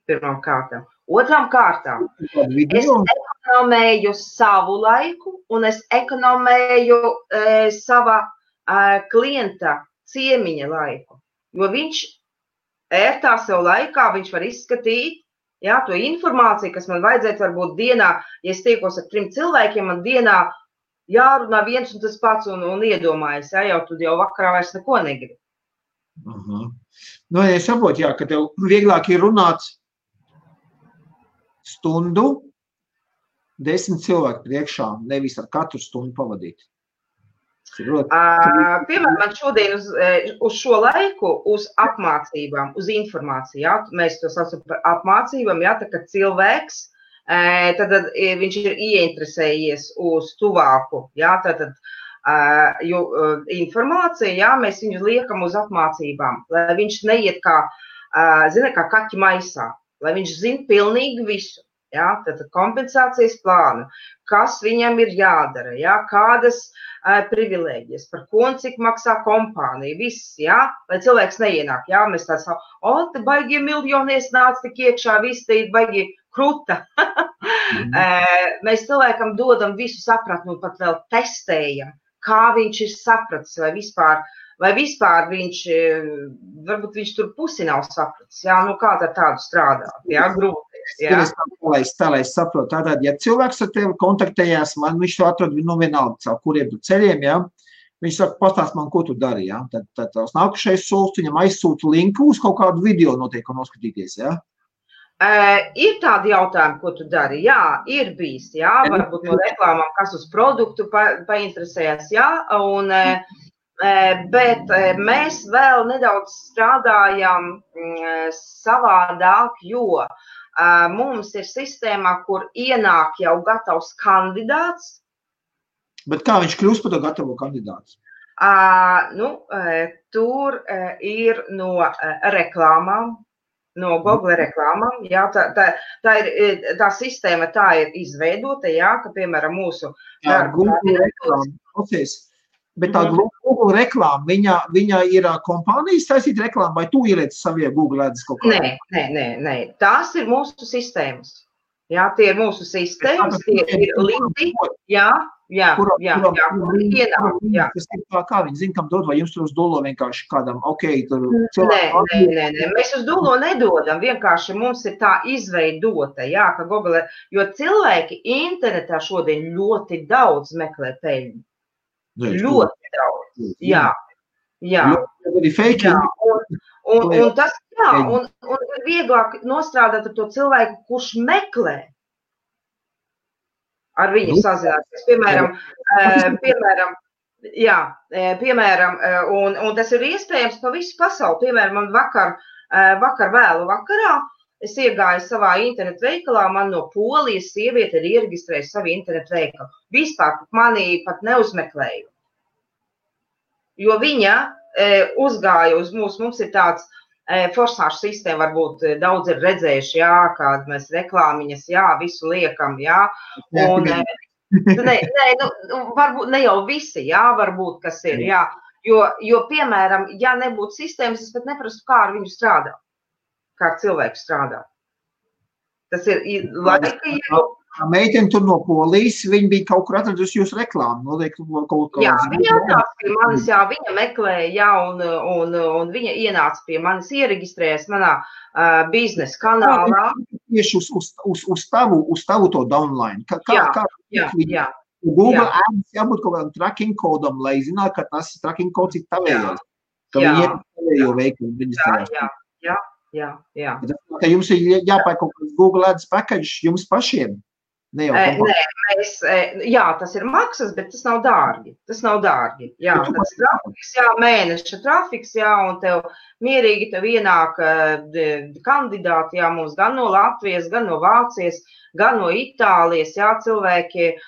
Pirmām kārtām. Otrām kārtām, es ekonomēju savu laiku un es ekonomēju sava klienta ciemiņa laiku, jo viņš ērtā sev laikā, viņš var izskatīt, jā, to informāciju, kas man vajadzētu varbūt dienā, ja es tiekos ar 3 cilvēkiem, man dienā jārunā viens un tas pats un iedomājas, jā, jau tu jau vakarā vairs neko negribi. Nu, es saprotu, jā, ka tev vieglāk ir runāt stundu 10 cilvēku priekšā, nevis ar katru stundu pavadīt. Piemēram, man šodien uz šo laiku, uz apmācībām, uz informāciju, jā, mēs to saucam par apmācībām, jā, tā kā cilvēks, tad viņš ir ieinteresējies uz tuvāku, jā, tātad informācija, jā, mēs viņu liekam uz apmācībām, lai viņš neiet kā kaķi maisā, lai viņš zina pilnīgi visu. Jā, tātad kompensācijas plānu, kas viņam ir jādara, jā, kādas privilēģijas, par ko un cik maksā kompānija, viss, jā, lai cilvēks neienāk, jā, mēs tā sakām, te baigie miljonies nāc tik iekšā, viss te ir baigi kruta. Mēs cilvēkam dodam visu sapratni un pat vēl testējam, kā viņš ir sapratis, vai vispār viņš, varbūt viņš tur pusi nav sapratis, jā, nu kā tad tādu strādāt, jā, grūti. Tā, lai es saprotu, tātad, ja cilvēks ar tevi kontaktējās, man viņš to atrod vienalga, caur kuriem tu ceļiem, jā, viņš saka, pastāst man, ko tu dari, jā, tad tās nākušais solis, viņam aizsūta linku uz kaut kādu video noteikti noskatīties, jā? Ir tādi jautājumi, ko tu dari, jā, ir bijis, jā, varbūt no reklāmām, kas uz produktu painteresējas, jā, bet mēs vēl nedaudz strādājam savādāk, jo mums ir sistēmā, kur ienāk jau gatavs kandidāts. Bet kā viņš kļūst par to gatavo kandidātu? Tur ir no reklāmām, no Google reklāmām, jā, tā sistēma tā ir izveidota, jā, ka, piemēram, mūsu Google reklāma, klausies, Bet tā Google reklāma, viņa ir kompānijas taisīt reklāmu, vai tu ieliec savie Google ads kaut kā? Nē. Tās ir mūsu sistēmas. Jā, tie ir mūsu sistēmas, tie ir linki. Jā. Tas ir tā, kā viņi zina, kam dod, vai jums tur uz dolo vienkārši kādam, tur cilvēku? Nē, mēs uz dolo nedodam, vienkārši mums ir tā izveidota, jā, ka Google, jo cilvēki internetā šodien ļoti daudz meklē peļņu. Ļoti daudz, jā. Un tas, un ir vieglāk nostrādāt ar to cilvēku, kurš meklē. Ar viņu sazināties, piemēram, un tas ir iespējams pa visu pasauli. Piemēram, man vakar vēlu vakarā es iegāju savā internetu veikalā, man no Polijas sieviete ir iereģistrējusi savu internetu veikalu. Vispār mani pat neuzmeklēju. Jo viņa uzgāja uz mums ir tāds forsāšu sistēma, varbūt daudz ir redzējuši, kāda mēs reklāmiņas, visu liekam, un varbūt ne jau visi, varbūt, kas ir, jo, piemēram, ja nebūtu sistēmas, es pat neprastu, kā ar viņu strādā, kā ar cilvēku strādā. Tas ir laika jau. Meitene tur no Polijas, viņa bija kaut kur atradusi jūsu reklāmu. Jā, viņa ienāca pie manis, viņa meklēja, un viņa ienāca pie manis, iereģistrējas manā biznesa kanālā. Tieši uz tavu to downline. Jā. Google Ads jābūt kaut kādam tracking kodam, lai zinātu, ka tas tracking kods ir tavējais. Ka viņi ir tavējo veikumu reģistrējās. Jā. Ka jums ir jāpērk kaut kāds Google Ads package jums pašiem. Tas ir maksas, bet tas nav dārgi. Tas ir trafiks, mēneša trafiks, un tev mierīgi tev ienāk kandidāti, mums gan no Latvijas, gan no Vācijas, gan no Itālijas, cilvēki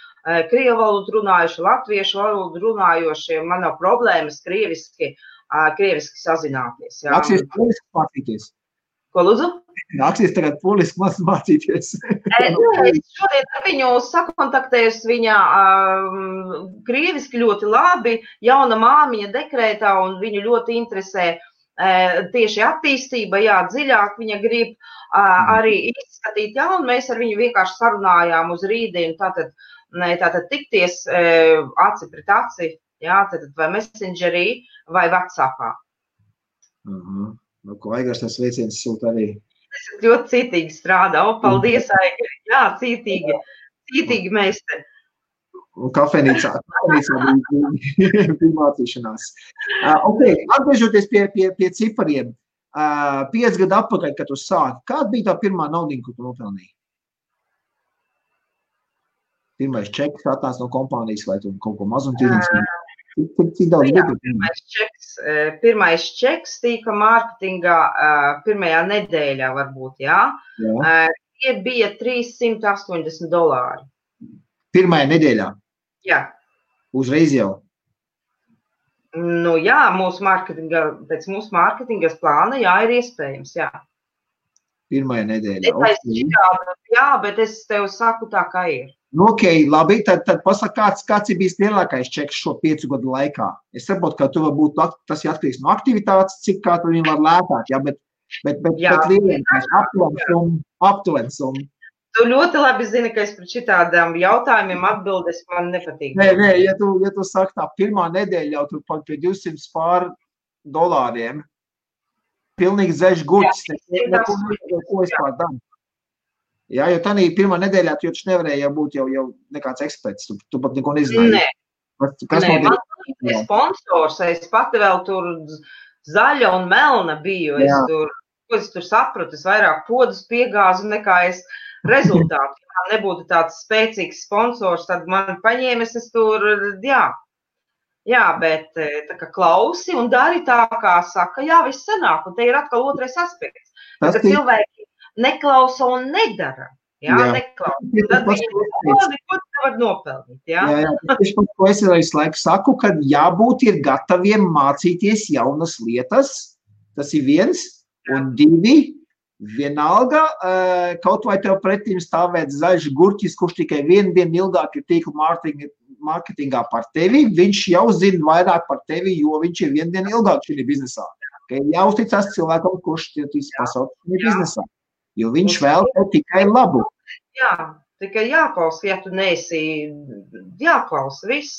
krievu valodu runājuši, latviešu valodu runājošie, man nav problēmas krieviski sazināties. Nāksies poliski mācīties. Ko lūdzu? Nāksies tagad poliski mācīties. Es šodien ar viņu sakontaktējos, viņa krieviski ļoti labi, jauna māmiņa dekrētā, un viņu ļoti interesē tieši attīstība, dziļāk viņa grib arī izskatīt, un mēs ar viņu vienkārši sarunājām uz rītdienu, tātad tikties aci pret aci, tātad vai Messengerī vai WhatsAppā. Ko Aigars tas veiciens sūta arī? Es ļoti cītīgi strādā. Paldies, Aigari. Jā, cītīgi meistari. Un kafejnīcā bija mācīšanās. Atgriežoties pie cipariem. 5 gadu atpakaļ, kad tu sāki, kāda bija tā pirmā naudiņa, ko tu nopelnīji? Pirmais čeks atnāca no kompānijas vai tu kaut ko mazumtirdzniecību? Cik daudz bija? Pirmais čeks tika mārketingā pirmajā nedēļā varbūt, Tie bija $380. Pirmajā nedēļā? Jā. Uzreiz jau? Pēc mūsu mārketingas plāna, ir iespējams, Pirmajā nedēļā. Bet es tev saku tā, kā ir. Labi, tad pasaka, kāds ir bijis lielākais čeks šo 5 gadu laikā. Es saprotu, ka tu varbūt tas ir atkarīgs no aktivitātes, cik kā tu viņu var lētāt, bet lielākais aptuveni summa. Tu ļoti labi zini, ka es par šitādām jautājumiem atbildes man nepatīk. Nē, ja tu saki tā, pirmā nedēļa jau tu pie $200 pilnīgi zeļš gurķis, ko es pār daru. Jo tādā pirmā nedēļā tu jau nevarēji būt jau nekāds eksperts, tu pat neko nezināji. Man bija sponsors, es pati vēl tur zaļa un melna biju, es tur sapratu, es vairāk podus piegāzu nekā es rezultātu. Ja man nebūtu tāds spēcīgs sponsors, tad man paņēmis es tur, bet tā kā klausi un dari tā, kā saka, viss sanāk, un te ir atkal otrais aspekts. Ka cilvēki neklausa un nedara. Neklausa. Tad viņi neko nevar nopelnīt. Ko es arī laiku saku, ka jābūt ir gataviem mācīties jaunas lietas. Tas ir 1, un 2, vienalga, kaut vai tev pretīm stāvēt zaļš gurķis, kurš tikai 1 dienu ilgāk ir tīkla mārketingā par tevi, viņš jau zina vairāk par tevi, jo viņš ir vienu dienu ilgāk šī biznesā. Okay? Jāuzticās cilvēkam, kurš tīs pasaules šī biznesā, jo viņš vēl tev tikai labu. Jā, tikai jāklausa, ja tu neesi, jāklausa viss.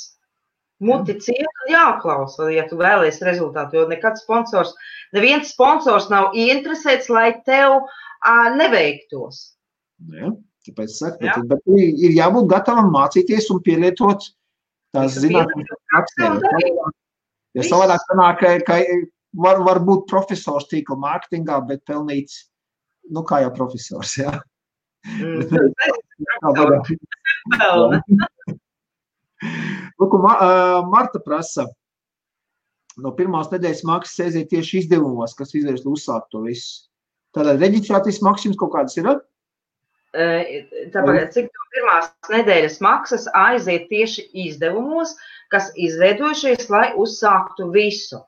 Muti ciet, jāklausa, ja tu vēlies rezultātu, jo neviens sponsors nav ieinteresēts, lai tev neveiktos. Jā. Tāpēc saku, bet ir jābūt gatavam mācīties un pielietot tās zinātnes praksē. Jo savādāk sanāk, ka var būt profesors tīkla mārketingā, bet pelnīt, kā jau profesors, jā. Lūk, Marta prasa, no pirmās nedēļas maksas aiziet tieši izdevumos, kas izvērst uzsākt to visu. Tātad reģistrācijas maksas kaut kādas ir? Tāpēc, cik pirmās nedēļas maksas aiziet tieši izdevumos, kas izveidojušies, lai uzsāktu visu.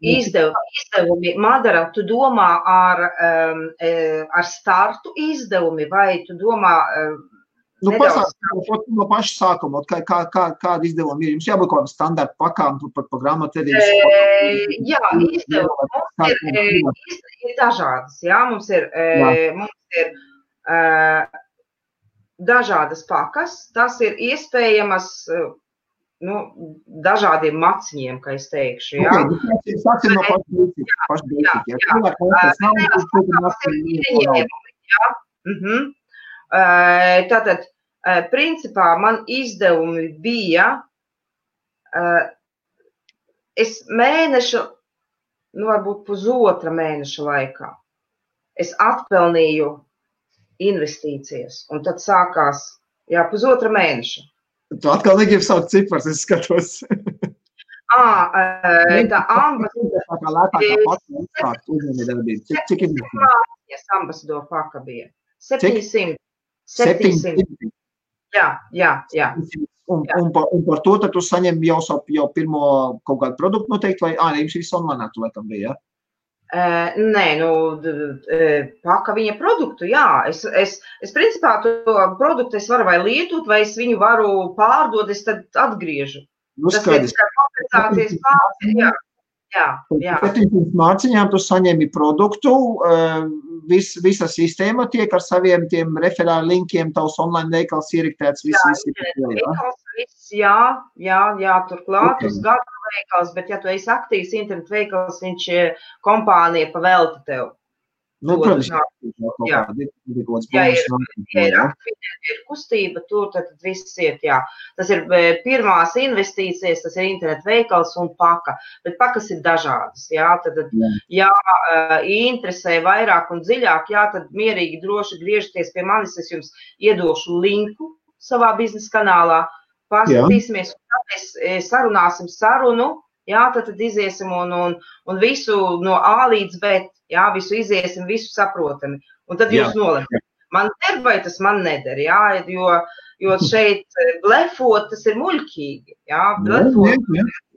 Izdevumi, Madara, tu domā ar startu izdevumi, vai tu domā no paša sākuma, kāda izdevuma ir? Jums jābūt kaut kādam standarta pakām par grāmatvedības? Jā, izdevumi ir dažādas. Jā, mums ir dažādas pakas. Tas ir iespējamas dažādiem maciņiem, kā es teikšu. Jā. Sāksim no paša. Tātad, principā, man izdevumi bija, es mēnešu, varbūt pusotra mēneša laikā, es atpelnīju investīcijas, un tad sākās, pusotra mēneša. Tu atkal negribi saukt cipars, es skatos. Tā ambasadora paka bija. 700. Jā. Un par to tad tu saņem jau pirmo kaut kādu produktu noteikti, vai jums viss online tu laikam bija, jā? Nē, paka viņa produktu, jā. Es principā to produktu es varu vai lietot, vai es viņu varu pārdot, es tad atgriežu. Tas ir kompensācijas pārstāvja, jā. 700 mārciņām tu saņemi produktu, visa sistēma tiek ar saviem tiem referāli linkiem, tavs online veikals ieriktēts, viss. Jā, turklāt uz gadu veikals, bet ja tu esi aktīvs internetu veikals, viņš kompānija pavelta tev. Protams, ja ir kustība, tur tad viss iet, jā. Tas ir pirmās investīcijas, tas ir internetu veikals un paka, bet pakas ir dažādas, jā. Tad, interesē vairāk un dziļāk, jā, tad mierīgi droši griežties pie manis, es jums iedošu linku savā biznesa kanālā, paskatīsimies, un tad sarunāsim sarunu, jā, tad iziesim un visu no A līdz B, jā, visu iziesim, visu saprotami. Un tad jūs nolemat. Man der vai tas man neder, jā, jo šeit blefot, tas ir muļķīgi, jā, blefot,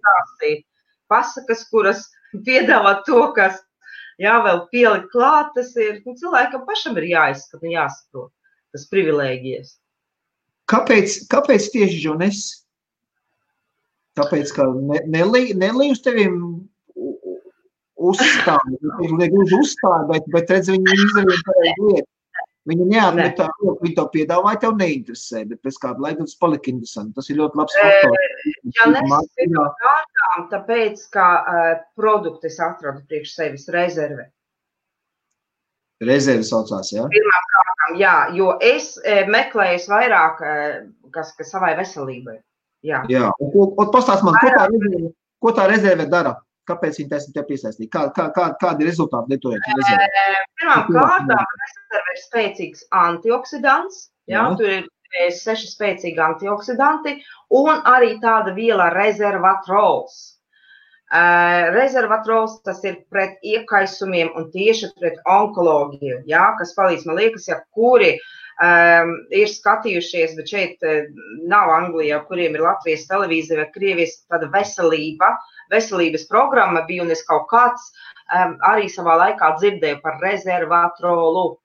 tās ir pasakas, kuras piedāvā to, kas, jā, vēl pielikt klāt, tas ir, cilvēkam pašam ir jāizskat un jāsaprot, tas privilēģijas. Kāpēc tieši Jones? Tāpēc, ka Nelī uz tevim uzstāja, bet redz, viņi izdarīja pareizi lietu. Viņi neatmetā, viņi to piedāvāja, tev neinteresē, bet pēc kāda laika tas palika interesanti. Tas ir ļoti labs faktors. Ja nesmu kārtām, tāpēc, ka produktu es atradu priekš sevis rezerve. Rezerve saucās, jā? Pirmām kārtām, jā, jo es meklēju vairāk, kas savai veselībai. Jā. Un pastāst man, ko tā rezerve dara? Kāpēc viņi taisni tev piesaistīja? Kādi rezultāti lietojot rezervi? Pirmām kārtām rezerve ir spēcīgs antioksidants. Jā, tur ir 6 spēcīgi antioksidanti un arī tāda viela rezervatrols. Rezervatrols tas ir pret iekaisumiem un tieši pret onkoloģiju, jā, kas palīdz, man liekas, ja kuri ir skatījušies, bet šeit nav Anglijā, kuriem ir Latvijas televīzija vai Krievijas tāda veselības programma bija, un es kaut kāds arī savā laikā dzirdēju par rezervatrolu.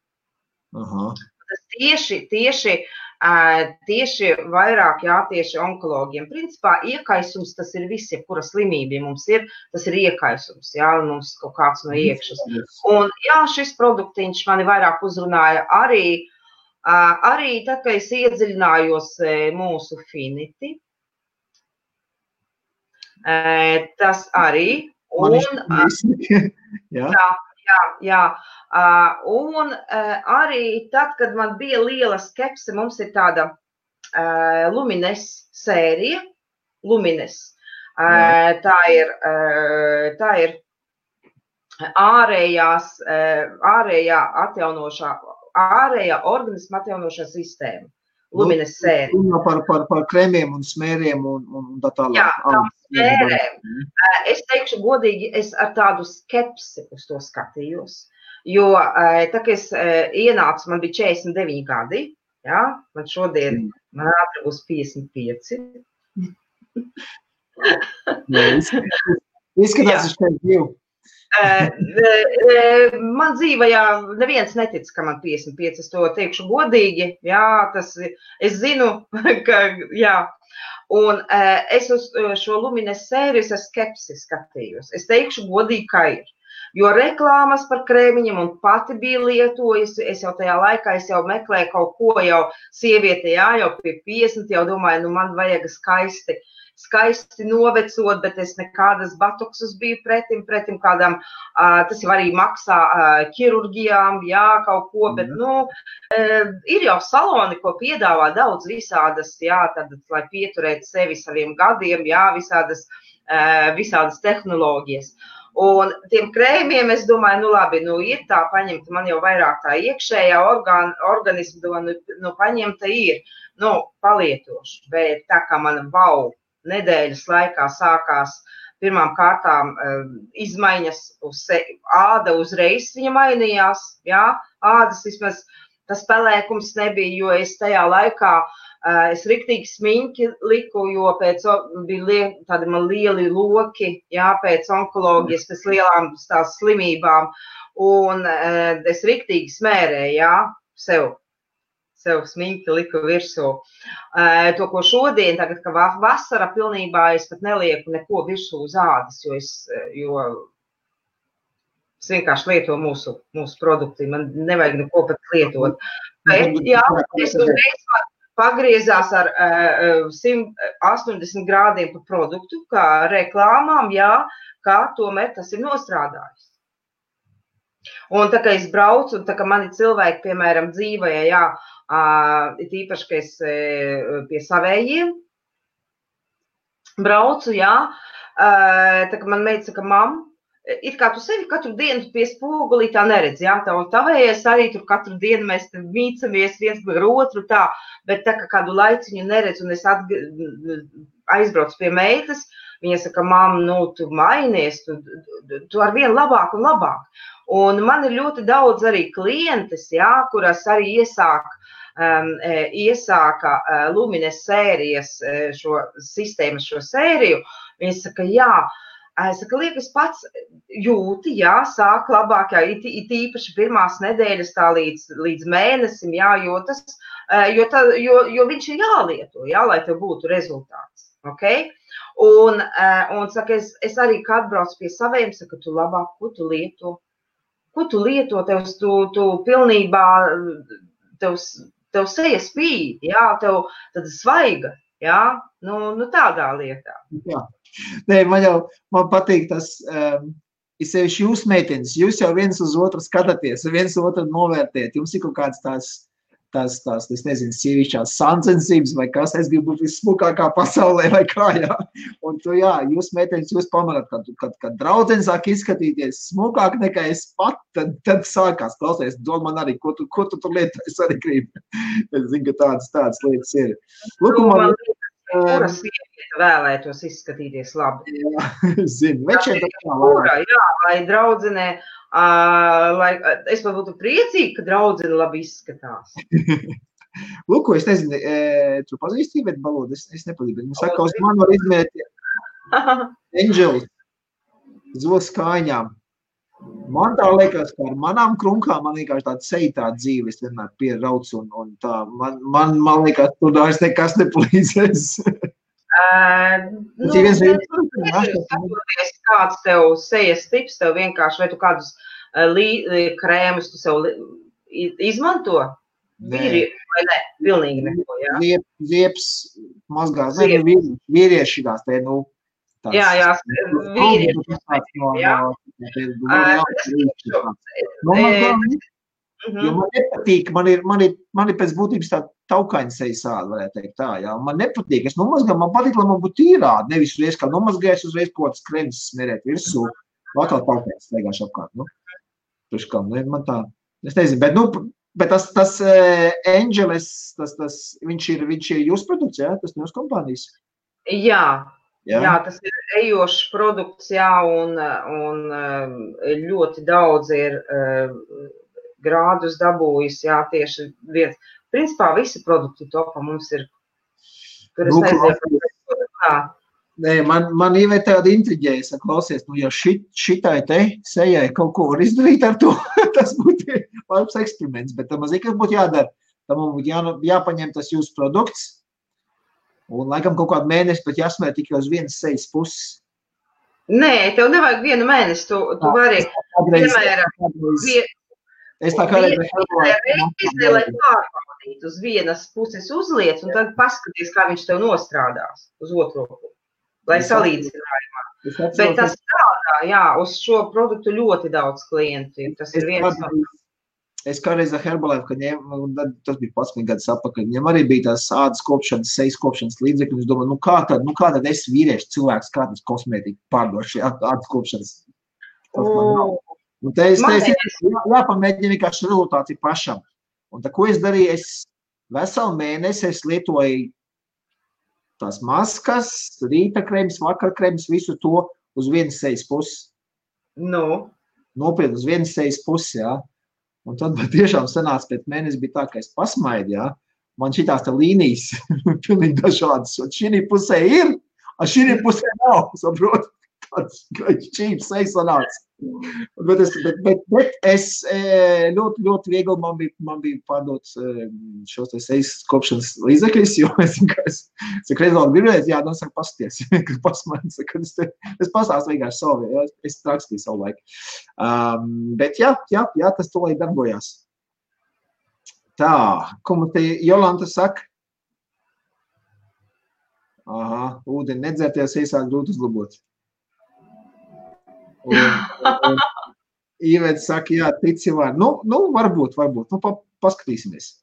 Tas tieši tieši vairāk jātieši onkologiem. Principā iekaisums tas ir viss, jebkura slimība mums ir, tas ir iekaisums, jā, mums kaut kāds no iekšas. Un jā, šis produktiņš mani vairāk uzrunāja arī tad, kad es iedziļinājos mūsu Finity. Tas arī. Jā. Un arī tad, kad man bija liela skepse, mums ir tāda Lumines sērija. Lumines. Tā ir ārējā organisma atjaunošā sistēma. Lumines sērija. Par kremiem un smēriem un tā tālāk. Jā, tām smērēm. Es teikšu godīgi, es ar tādu skepsi uz to skatījos, jo tā, ka es ienācu, man bija 49 gadi, jā, man šodien, man ātri būs 55. Izskatās, es tev dzīvu. Man dzīvajā neviens netic, ka man 55, es to teikšu godīgi, jā, es zinu, ka, jā, un es uz šo Lumines sēriju ar skepsi skatījos, es teikšu godīgi, ka ir, jo reklāmas par krēmiņiem un pati bija lietojusi, es jau tajā laikā, es jau meklēju kaut ko jau sieviete, jā, jau pie 50, jau domāju, man vajag skaisti novecot, bet es nekādas botoksus biju pretim kādām, tas jau arī maksā ķirurģijām, jā, kaut ko, bet, ir jau saloni, ko piedāvā daudz visādas, jā, tad, lai pieturētu sevi saviem gadiem, jā, visādas tehnoloģijas. Un tiem krēmiem es domāju, labi, ir tā paņemta, man jau vairāk tā iekšējā organisma, paņemta ir, palietošu, bet tā kā man nedēļas laikā sākās pirmām kārtām izmaiņas āda uzreiz viņa mainījās, jā, ādas vismaz tas pelēkums nebija, jo es tajā laikā, es riktīgi smiņķi liku, jo pēc bija tādi man lieli loki, jā, pēc onkoloģijas, pēc lielām tās slimībām, un es riktīgi smērēju, jā, sev smiņķi liku virsū. To, ko šodien, tagad, ka vasara pilnībā es pat nelieku neko virsū uz ādas, jo es vienkārši lieto mūsu produkti, man nevajag neko pat lietot. Bet, jā, es uzreiz pagriezās ar 180 grādiem pa produktu, kā reklāmām, jā, kā tomēr tas ir nostrādājis. Un tā, ka es braucu, un tā, ka mani cilvēki, piemēram, dzīvoja, jā, tīpaši, ka es pie savējiem braucu, jā, tā, ka man meita saka, mam, it kā tu sevi katru dienu pie spogulī tā neredz, jā, tā un tavējais arī tur katru dienu mēs mīcamies viens par otru tā, bet tā, ka kādu laiciņu neredz un es aizbraucu pie meitas, viņa saka, mam, tu mainies, tu ar vien labāk un labāk. Un man ir ļoti daudz arī klientes, jā, kuras arī iesāka Lumines sērijas šo sistēmu, šo sēriju. Viņa saka, jā, es saka, liekas pats jūti, jā, sāk labāk, jā, it īpaši pirmās nedēļas tā līdz mēnesim, jā, jo viņš ir jālieto, jā, lai tev būtu rezultāts, ok? Un saka, es arī, kad atbraucu pie saviem, saka, tu labāk, ko tu lieto? Ko tu lieto, tu pilnībā, tev seja spīd, jā, tev tad svaiga, jā, tādā lietā. Jā. Nē, man patīk tas, ir sevišķi jūs meitenes, jūs jau viens uz otru skatāties, viens otru novērtēt, jums ir kaut kāds tās, es nezinu, sievišķās sāncensības vai kas, es gribu būt vissmukākā pasaulē vai kā, jā. Un tu, jā, jūs meitenes, jūs pamanāt, kad draudzene sāk izskatīties smukāk nekā es pat, tad sākās klausies, dod man arī, ko tu tur lietu, es arī gribu. Es zinu, ka tādas lietas ir. Lūk, man kura sieviete vēlētos izskatīties labi. Jā, zinu. Jā, vai draudzenē, es pat būtu priecīgi, ka draudzene labi izskatās. Lūk, es nezinu, tu pazīsti Iveta Balodu, es nepazīstu, bet man saka, uz mani var izmēt Angels, zolas kājņām. Man tā liekas, ka ar manām krunkām man vienkārši tāda seja dzīve, es vienmēr pierauc un tā. Man liekas, tur vairs nekas nepalīdzēs. Skatoties, kāds tev sejas tips, tev vienkārši, vai tu kādus krēmus tu sev izmanto? Vīri, vai ne? Pilnīgi neko, jā? Zieps mazgās, vīrieši šitās te, tās. Jā, vīrieši. Jo man nepatīk, man ir pēc būtības tā taukaņa sejas āda, varētu teikt tā, jā. Man nepatīk, es nomazgāju, man patīk, lai man būtu tīrādi, nevis uzreiz, kā nomazgājis, uzreiz kaut kāds krems smerēt virsū, atkal taukaņas staigāšu apkārt, Priekškam, man tā, es nezinu, bet tas Angeles, viņš ir jūsu produkts, jā, tas no jūsu kompānijas? Jā, tas ir ejošs produkts, jā, un ļoti daudz ir grādus dabūjis, jā, tieši viens. Principā visi produkti topā mums ir, tur es nezinu, kā. Nē, man Iveta tāda intriģēja, klausies, ja šitai te sejai kaut ko var izdarīt ar to, tas būtu labs eksperiments, bet tam mazīgi, kas būtu jādara, tam būtu jāpaņem tas jūsu produkts, un laikam kaut kādu mēnesi, bet jāsmēr tikai uz vienas sejas puses. Nē, tev nevajag vienu mēnesi, tu vari, piemēram, es tā kā reizi, lai pārbaudītu uz vienas puses uzliec, un tad paskaties, kā viņš tev nostrādās uz otro pusi. Lai salīdzinājumā. Bet tas strādā, jā, uz šo produktu ļoti daudz klientu. Tas ir viens no... Es kādreiz ar Herbalife, kad tas bija 11 gadus atpakaļ, viņam arī bija tās ādas kopšanas, sejas kopšanas līdzekļi, un es domāju, kā tad es vīrieši cilvēks, kā tas kosmētika pārdoši ādas kopšanas. Un te es jāpamēģina vienkārši rezultāti pašam. Un tā, ko es darīju, es veselu mēnesi es lietoju tās maskas, rīta krems, vakar krems, visu to uz vienas sejas puses. Nopietni uz vienas sejas puses, jā. Un tad tiešām sanāca pēc mēnesi bija tā, ka es pasmaidu, jā. Man šitās tā līnijas pilnīgi dažādas. Un šī pusē ir, a šī pusē nav, saprot. Tāds šķīps sejas sanāca. Bet es ļoti, ļoti viegli man bija pārdot šos te sejas kopšanas līdzekļus, jo es reizāk gribēju, jā, saka, pasties, kad pasmaidu, kad es pastāstu vienkārši savu, jā, es rakstīju savu laiku. Bet jā, tas to lai darbojās. Tā, ko man te Jolanta saka? Aha, ūdeni nedzērties, iesāk grūti uzlabot. Un Iveta saka, jā, tici var. Varbūt. Paskatīsimies.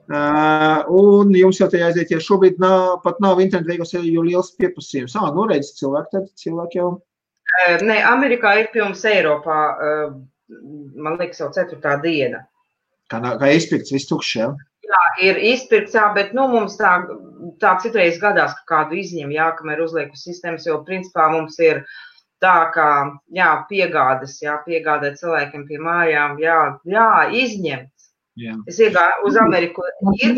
Un jums jau te jāaiziet, ja šobrīd pat nav internetu veikos, jo liels pieprasījums. Redz, cilvēki jau. Nē, Amerikā ir pirms Eiropā, man liekas, jau 4. diena. Kā izpirkts, viss tukšs, jā? Jā, ir izpirkts, jā, bet mums tā citreiz gadās, ka kādu izņem, jā, kamēr uzliek uz sistēmas, jo principā mums ir tā kā, jā, piegādāt cilvēkiem pie mājām, jā, izņemts. Jā. Es iegāju uz Ameriku,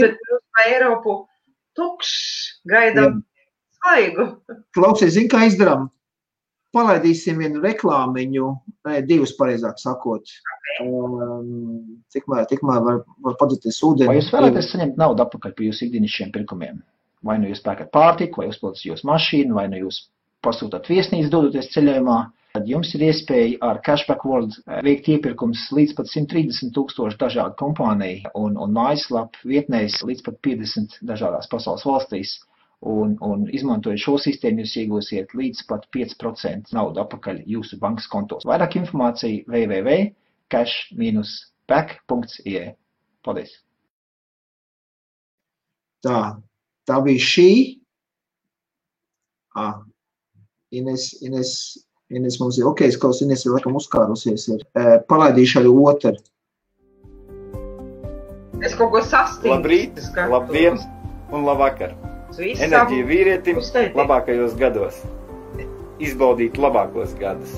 bet uz Eiropu tukšs, gaidām svaigu. Klausies, zini, kā izdarām? Palaidīsim vienu reklāmiņu, divus pareizāk sakot. Tikmēr var padzīties ūdeni. Vai jūs vēlaties saņemt naudu atpakaļ par jūsu ikdienišķiem pirkumiem? Vai nu jūs pērkat pārtiku, vai uzpildat jūsu mašīnu, vai nu jūs pasūtāt viesnīcu dodoties ceļojumā, tad jums ir iespēja ar Cashback World veikt iepirkums līdz pat 130,000 dažādu kompāniju un mājaslapu vietnēs līdz pat 50 dažādās pasaules valstīs. Un izmantojot šo sistēmu, jūs iegūsiet līdz pat 5% naudu atpakaļ jūsu bankas kontos. Vairāk informācija www.cash-back.ie. Paldies! Tā bija šī. Ines mums ir, ok, skaus, Ines ir laikam uzkārusies. Palaidīšu arī otru. Es kaut ko sastīju. Labrīt, labdien un labvakar. Enerģija vīrietim labākajos gados. Izbaudīt labākos gadus.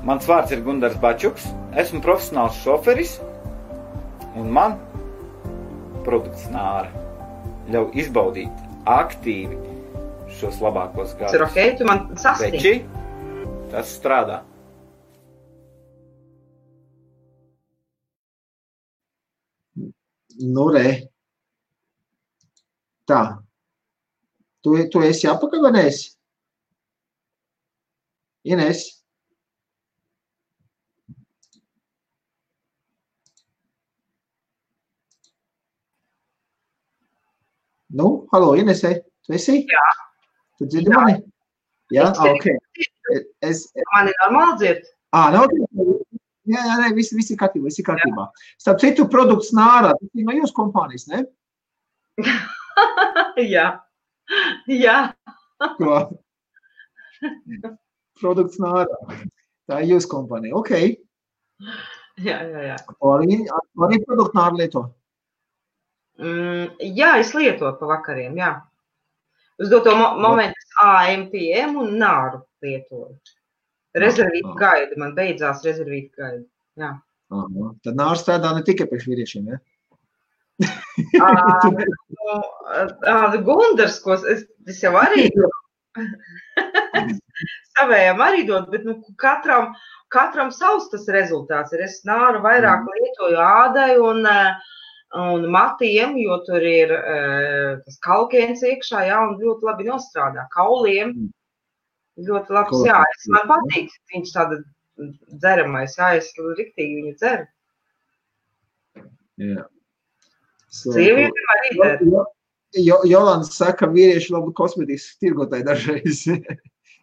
Mans vārds ir Gundars Bačuks, esmu profesionāls šoferis un man produkts Nāra ļauj izbaudīt aktīvi šos labākos gadus. Tu man sastīji. Veči, Tas strādā. Nu, re. Tā. Tu esi apakaļ, vai neesi? Ines? Nu, halo, Inesē, tu esi? Jā. Tu dzirdi mani? Jā, ok. Mani normāli dzird? Nu, ok. Jā, viss ir kārtībā. Starp citu, produkts Nāra, tas ir no jūsu kompānijas, ne? Jā. Ko? Produkts Nāra. Tā ir jūsu kompānija, ok. Jā. Arī produktu Nāra lieto? Jā, es lietoju pa vakariem, jā. Uz doto momentu AMPM un Nāru lietoju. Rezervīta gaida, man beidzās rezervīta gaida, jā. Tad Nāra strādā ne tikai priekš vīriešiem, ja? Gundars, ko es jau arī savējām arī dod, bet katram savs tas rezultāts ir. Es Nāru vairāk lietoju ādai un matiem, jo tur ir tas kalkēns iekšā, jā, un ļoti labi nostrādā. Kauliem ļoti labs, jā. Man patīk, viņš tāda dzeramais, jā, es riktīgi viņu dzeru. Jā. Sievietēm arī dzer. Jolanda saka, vīrieši labi kosmetikas tirgotāji dažreiz.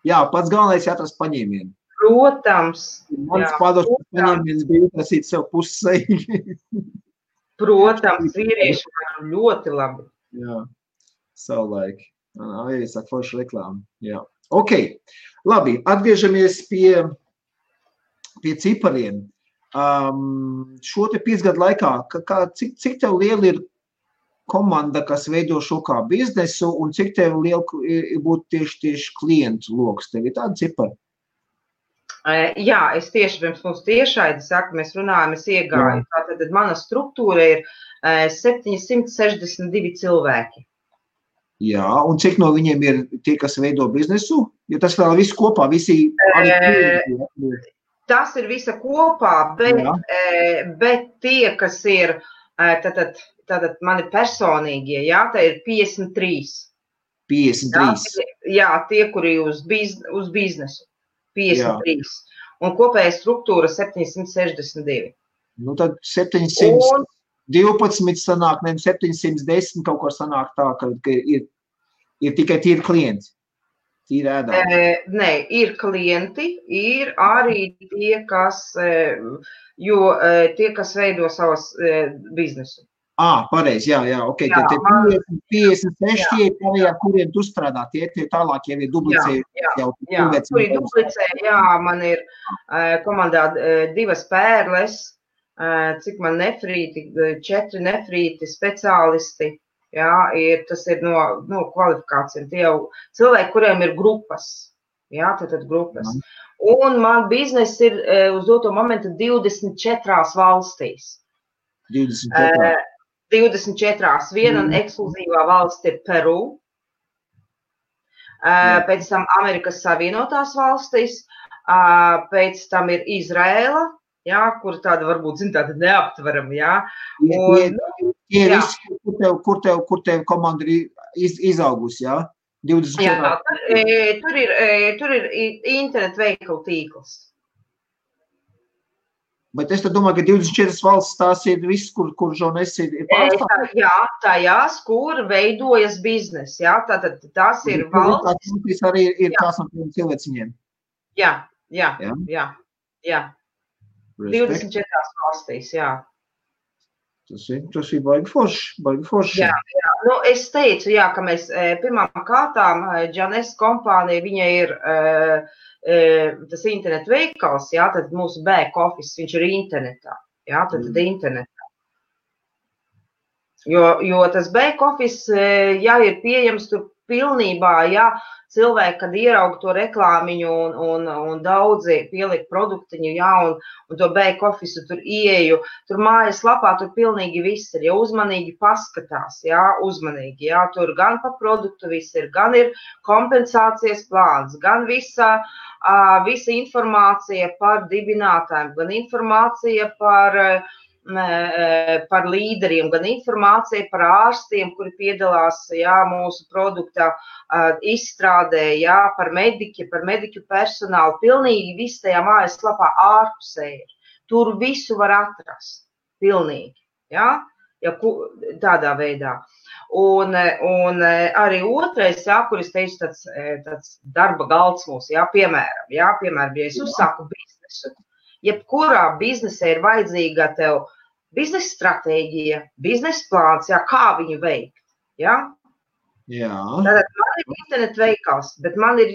Jā, pats galvenais jāatrast paņēmienu. Protams. Mans padošs paņēmiens bija atrasīt sev pusseji. Protams, vīrieši var ļoti labi. Jā, savulaik. Arī saka forša reklāma. Jā. Ok, labi, atgriežamies pie cipariem. Šo te 5 gadu laikā, cik tev liela ir komanda, kas veido šo kā biznesu, un cik tev liela būtu tieši klientu loks? Tev ir tāda cipara? Jā, es tieši pirms mums tiešaidi saku, mēs runājam, es iegāju. Tātad mana struktūra ir 762 cilvēki. Jā, un cik no viņiem ir tie, kas veido biznesu? Jo tas vēl viss kopā, visi arī tas ir visa kopā, bet tie, kas ir tātad mani personīgie, jā, tā ir 53. 53? Jā, tie, kuri uz biznesu. 53. Jā. Un kopēja struktūra 762. Nu tad 712 sanāk, ne 710 kaut ko sanāk tā, ka ir tikai tīri klienti, tīri ēdāji. Nē, ir klienti, ir arī tie, kas veido savas biznesu. Pareizi, jā, ok. Tad 56 tie ir, kuriem tu strādā, tie tālāk jau ir duplicēji. Jā, kuri duplicēji, jā, man ir komandā 2 pērles, cik man nefrīti, 4 nefrīti speciālisti, jā, tas ir no kvalifikācijām. Tie jau cilvēki, kuriem ir grupas, jā, tad grupas. Un man biznes ir uz doto momentu 24 valstīs. 24. 24. Viena ekskluzīvā valsts ir Peru, pēc tam Amerikas Savienotās valstis, pēc tam ir Izraela, jā, kur tāda varbūt, tāda neaptverama, jā. Kur tev komanda ir izaugusi, jā? 24. Jā, tur ir internet veikalu tīkls. Bet es tad domāju, ka 24 valsts tās ir viss, kur žurnālis ir pārstāvs. Jā, tajās, kur veidojas biznes, jā, tātad tās ir valstis. Tas arī ir tās no tiem cilvēciņiem. Jā. 24 valstīs, jā. Tas ir baigi forši. Jā. Nu, es teicu, jā, ka mēs pirmām kārtām, Džanes kompānija, viņa ir tas internet veikals, jā, tad mūsu back office, viņš ir internetā, jā, tad internetā. Jo tas back office, jā, ir pieejams tur pilnībā, ja cilvēki, kad ieraug to reklāmiņu un daudzi pieliek produktiņu, ja, un to back office tur ieju, tur mājas lapā, tur pilnīgi viss ir, ja uzmanīgi paskatās, ja, uzmanīgi, ja, tur gan pa produktu viss ir, gan ir kompensācijas plāns, gan visa informācija par dibinātājiem, gan informācija par līderiem, gan informācija par ārstiem, kuri piedalās, jā, mūsu produkta izstrādē, jā, par mediķu personālu. Pilnīgi viss tajā mājaslapā ārpusē ir. Tur visu var atrast. Pilnīgi, jā, ja, tādā veidā. Un arī otrais, jā, kur es teicu, tāds darba galds mūs, jā, piemēram, ja es uzsāku biznesu, jebkurā biznesē ir vajadzīga tev biznesa stratēģija, biznesa plāns, jā, kā viņu veikt, jā? Jā. Tātad man ir internet veikals, bet man ir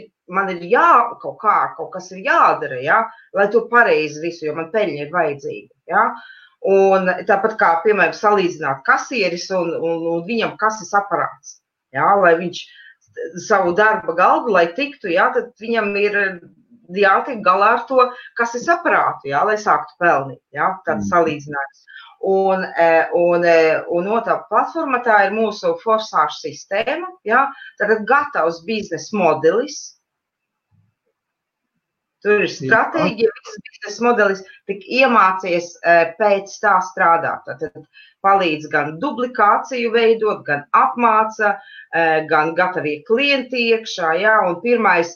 kaut kas ir jādara, jā, lai to pareizi visu, jo man peļņa ir vajadzīga, jā? Un tāpat kā, piemēram, salīdzināt kasieris un viņam kases aparāts, jā, lai viņš savu darba galdu, lai tiktu, jā, tad viņam ir jātiek galā ar to kases aparātu, jā, lai sāktu pelnīt, jā, tāds salīdzinājums. Un otrā platforma tā ir mūsu forsāžu sistēma, jā, tātad gatavs biznesa modelis. Tur ir stratēģija, visas biznesa modelis, tik iemācies pēc tā strādāt. Tātad palīdz gan duplikāciju veidot, gan apmāca, gan gatavie klienti iekšā, jā, un pirmais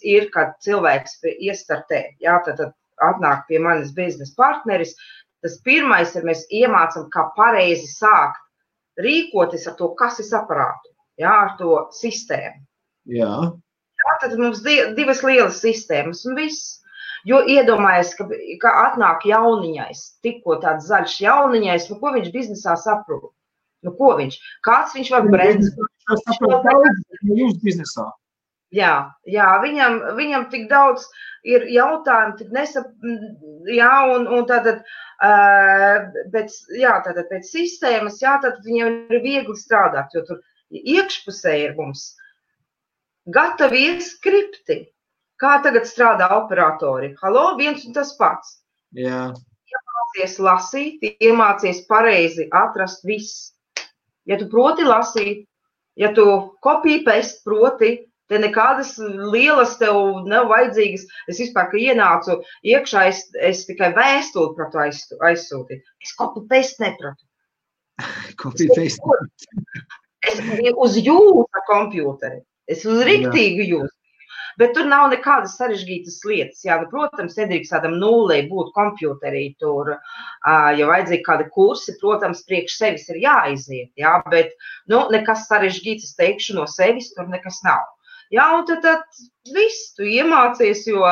ir, kad cilvēks iestartē, jā, tad atnāk pie manis biznesa partneris, tas pirmais ir, mēs iemācam, kā pareizi sākt rīkoties ar to kases aparātu, jā, ar to sistēmu. Jā. Jā, tad mums divas lielas sistēmas un viss. Jo iedomājies, ka atnāk jauniņais, tikko tāds zaļš jauniņais, nu ko viņš biznesā saprot? Nu ko viņš? Kāds viņš var brendz? Jūs biznesā. Jā, viņam tik daudz ir jautājumu, tik jā, un tātad, tātad pēc sistēmas, jā, tad viņam ir viegli strādāt, jo tur iekšpusē ir mums gatavie skripti. Kā tagad strādā operatori? Halo, viens un tas pats. Jā. Iemācies lasīt, iemācies pareizi atrast viss. Ja tu proti lasīt, ja tu copy-paste proti, te nekādas lielas tev nav vajadzīgas. Es vispār, ka ienācu iekšā, es tikai vēstuli pratu aizsūtīt. Es copy-paste nepratu. Copy-paste. Es uz jūsu kompjūteri. Es uz riktīgu jūsu. Bet tur nav nekādas sarežģītas lietas. Jā, nu, protams, nedrīkst tādam nullei būt kompjūterī tur, ja vajadzīgi kādi kursi, protams, priekš sevis ir jāaiziet, jā, bet, nu, nekas sarežģīts, es teikšu, no sevis tur nekas nav. Jā, un tad viss tu iemācies, jo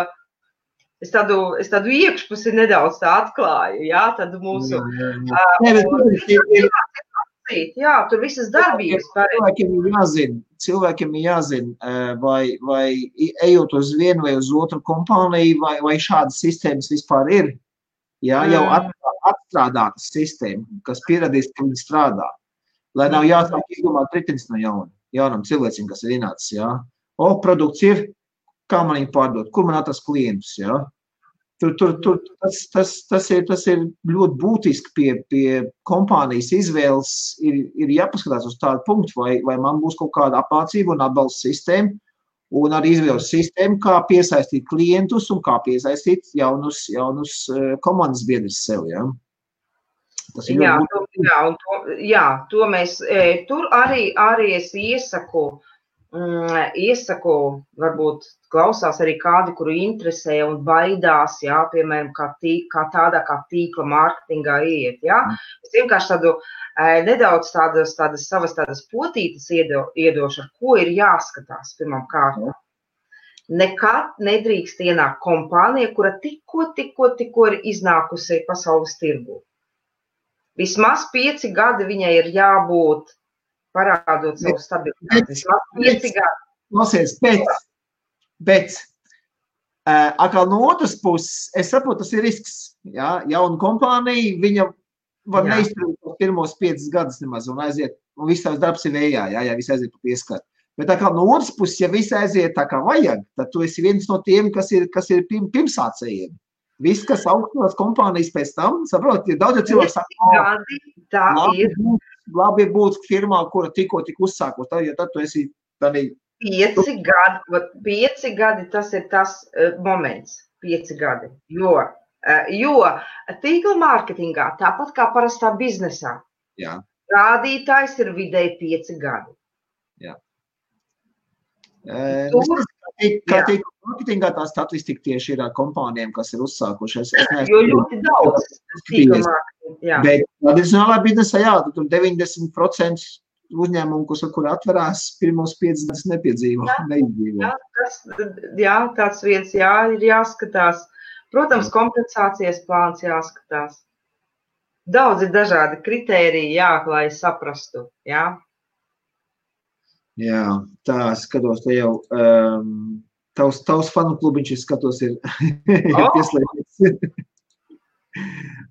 es tādu iekšpusi nedaudz tā atklāju, jā, tad mūsu... Jā, tur visas darbības cilvēkiem ir jāzina, vai ejot uz vienu vai uz otru kompāniju, vai šādas sistēmas vispār ir. Jā, jau atstrādāta sistēma, kas pierādīs, ka viņi strādā. Lai nav jāsāk izdomāt ritenis no jaunam cilvēcim, kas ir ienācis, jā. Produkts ir, kā man viņu pārdot, kur man atrast klientus, jā. Tas ir ļoti būtiski pie kompānijas izvēles, ir jāpaskatās uz tādu punktu, vai man būs kaut kāda apmācība un atbalsta sistēma, un arī izvēles sistēma, kā piesaistīt klientus un kā piesaistīt jaunus komandas biedrus sev, jā. Tas ir to mēs, tur arī es iesaku, varbūt klausās arī kādi, kuru interesē un baidās, jā, piemēram, kā tādā kā tīkla mārketingā iet, jā. Es vienkārši tādu nedaudz savas potītes iedošu, ar ko ir jāskatās pirmām kārtām. Nekad nedrīkst ienākt kompānija, kura tikko ir iznākusi pasaules tirgū. Vismaz 5 gadi viņai ir jābūt parādot savu stabilitāti. Vismaz 5 gadi. Klausies, bet Atkal no otras puses, es saprotu, tas ir risks. Ja? Jauna kompānija, viņa var neizturēt pirmos 5 gadus nemaz un aiziet, un viss tavs darbs ir vējā, ja viss aiziet pa pieskatu. Bet atkal no otras puses, ja viss aiziet tā kā vajag, tad tu esi viens no tiem, kas ir pirmsācējiem. Viss, kas augstos kompānijas pēc tam, saprot, ir daudz cilvēku saka, labi ir būt firmā, kura tikko uzsākos, jo tad tu esi tādā. 5 gadi, tas ir tas moments, 5 gadi, jo tīkla mārketingā, tāpat kā parastā biznesā, rādītājs ir vidēji 5 gadi. Jā. Kā tīkla mārketingā tā statistika tieši ir kompānijām, kas ir uzsākušies. Jo ļoti daudz tīkla mārketingā. Bet tradicionālā biznesā, tur 90% uzņēmumu, kur atverās pirmos 5 gadus neizdzīvo. Jā, tāds viens ir jāskatās. Protams, kompensācijas plāns jāskatās. Daudz ir dažādi kritēriji, lai saprastu. Jā, tā skatos, te jau tavs fanu klubiņš, es skatos, ir pieslēgts.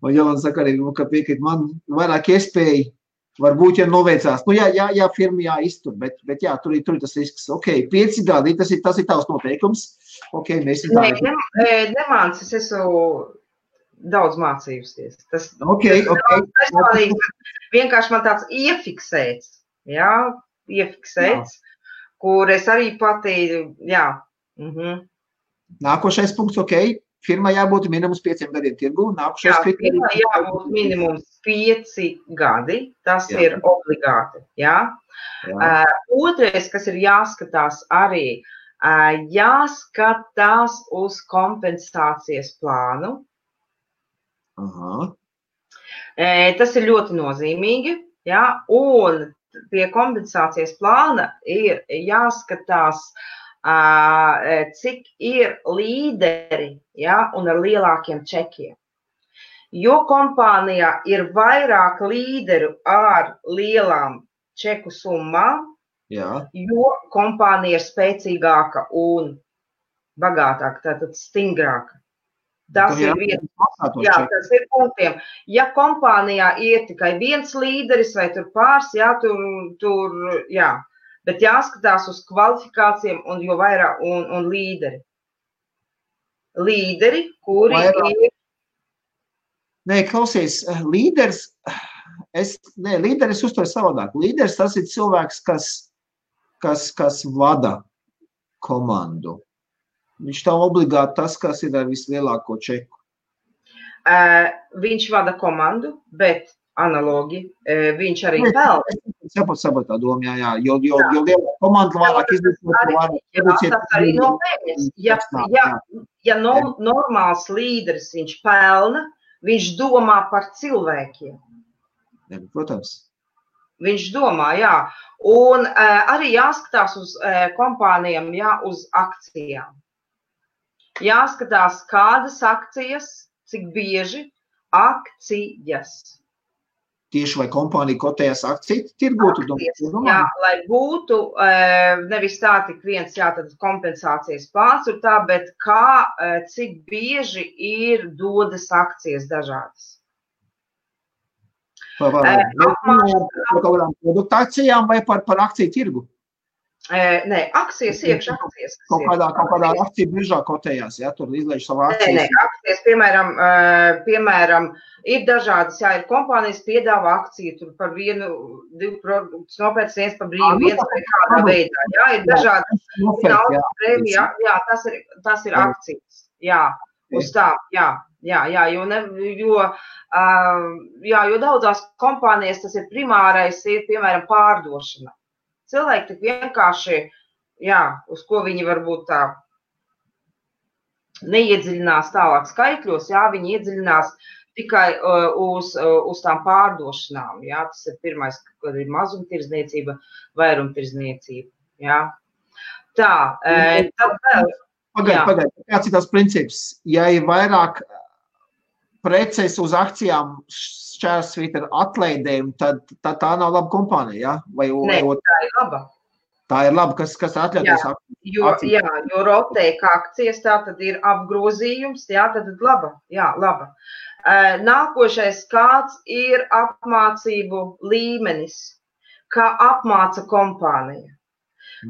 Un Jolanta saka arī, ka piekrīt man vairāk iespēju. Varbūt, ja noveicās, jā, firma jāiztur, bet tur ir tas risks. Ok, 5 gadi, tas ir tavs noteikums. Ok, mēs ir tā. Nemāc, es esmu daudz mācījusies. Ok. Vienkārši man tāds iefiksēts, kur es arī pati, Nākošais punkts, ok. Firmai jābūt minimums 5 gadiem tirgu. Firmai jābūt minimums 5 gadi. Tas ir obligāti. Otrais, kas ir jāskatās arī, jāskatās uz kompensācijas plānu. Tas ir ļoti nozīmīgi. Un pie kompensācijas plāna ir jāskatās, cik ir līderi un ar lielākiem čekiem. Jo kompānijā ir vairāk līderu ar lielām čeku summām, jo kompānija ir spēcīgāka un bagātāka, tātad stingrāka. Tas ir punktiem. Ja kompānijā ir tikai viens līderis vai tur pāris, bet jāskatās uz kvalifikācijām un jo vairāk un līderi. Līderi, kuri ir... Nē, klausies, līderis uztver savādāk. Līderis tas ir cilvēks, kas vada komandu. Viņš tā obligāti tas, kas ir ar vislielāko čeku. Viņš vada komandu, bet analogi, viņš arī pelna. Saprot tā doma, jo liela komanda vairāk izdarīt. Tas arī nopietnis. Ja normāls līderis viņš pelna, viņš domā par cilvēkiem. Protams. Viņš domā, Un arī jāskatās uz kompānijām, uz akcijām. Jāskatās, kādas akcijas, cik bieži akcijas. Tieši vai kompānija kotējas akciju tirgu? Lai būtu nevis tā tik viens, tad kompensācijas plāns ir tā, bet cik bieži ir dodas akcijas dažādas. Par kādām produktācijām vai par akciju tirgu? Nē, akcijas iekš akcijas. Kaut kādā akciju biržā kotējās, tur izlaiž savu akciju. Nē, akcijas, piemēram, ir dažādas, ir kompānijas piedāvā akciju, tur par 1-2 produktus nopērts, viens par brīvu, viens vai kādā veidā, ir dažādas naudas prēmija, tas ir akcijas, uz tā, jo daudzās kompānijas tas ir primārais, ir, piemēram, pārdošana. Cilvēki tik vienkārši, uz ko viņi varbūt tā neiedziļinās tālāk skaitļos, viņi iedziļinās tikai uz tām pārdošanām. Tas ir pirmais, kad ir mazumtirdzniecība, vairumtirdzniecība. Tā, tad vēl. Pagaid, kāds ir tās princips? Ja ir vairāk preces uz akcijām šķērsvīt ar atlaidēm, tad tā nav laba kompānija, Nē, tā ir laba. Tā ir laba, kas atļauties akcijas. Jo rotēka akcijas, tā tad ir apgrozījums, tad laba, laba. Nākošais, kāds ir apmācību līmenis, kā apmāca kompānija,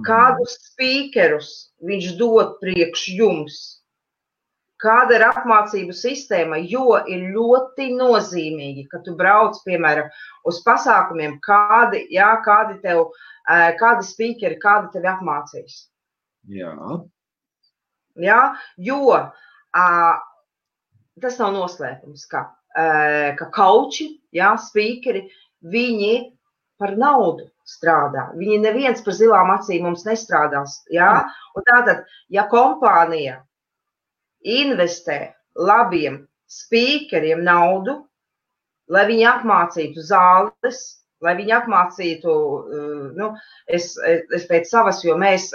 kādus spīkerus viņš dod priekš jums, kāda ir apmācību sistēma, jo ir ļoti nozīmīgi, ka tu brauc, piemēram, uz pasākumiem, kādi spīkeri, kādi tevi apmācīs. Jā. Jā, jo tas nav noslēpums, ka kauči, spīkeri, viņi par naudu strādā. Viņi neviens par zilām acīm mums nestrādās. Jā? Un tātad, ja kompānija investē labiem spīkeriem naudu, lai viņi apmācītu zāles, lai viņi apmācītu, es pēc savas, jo mēs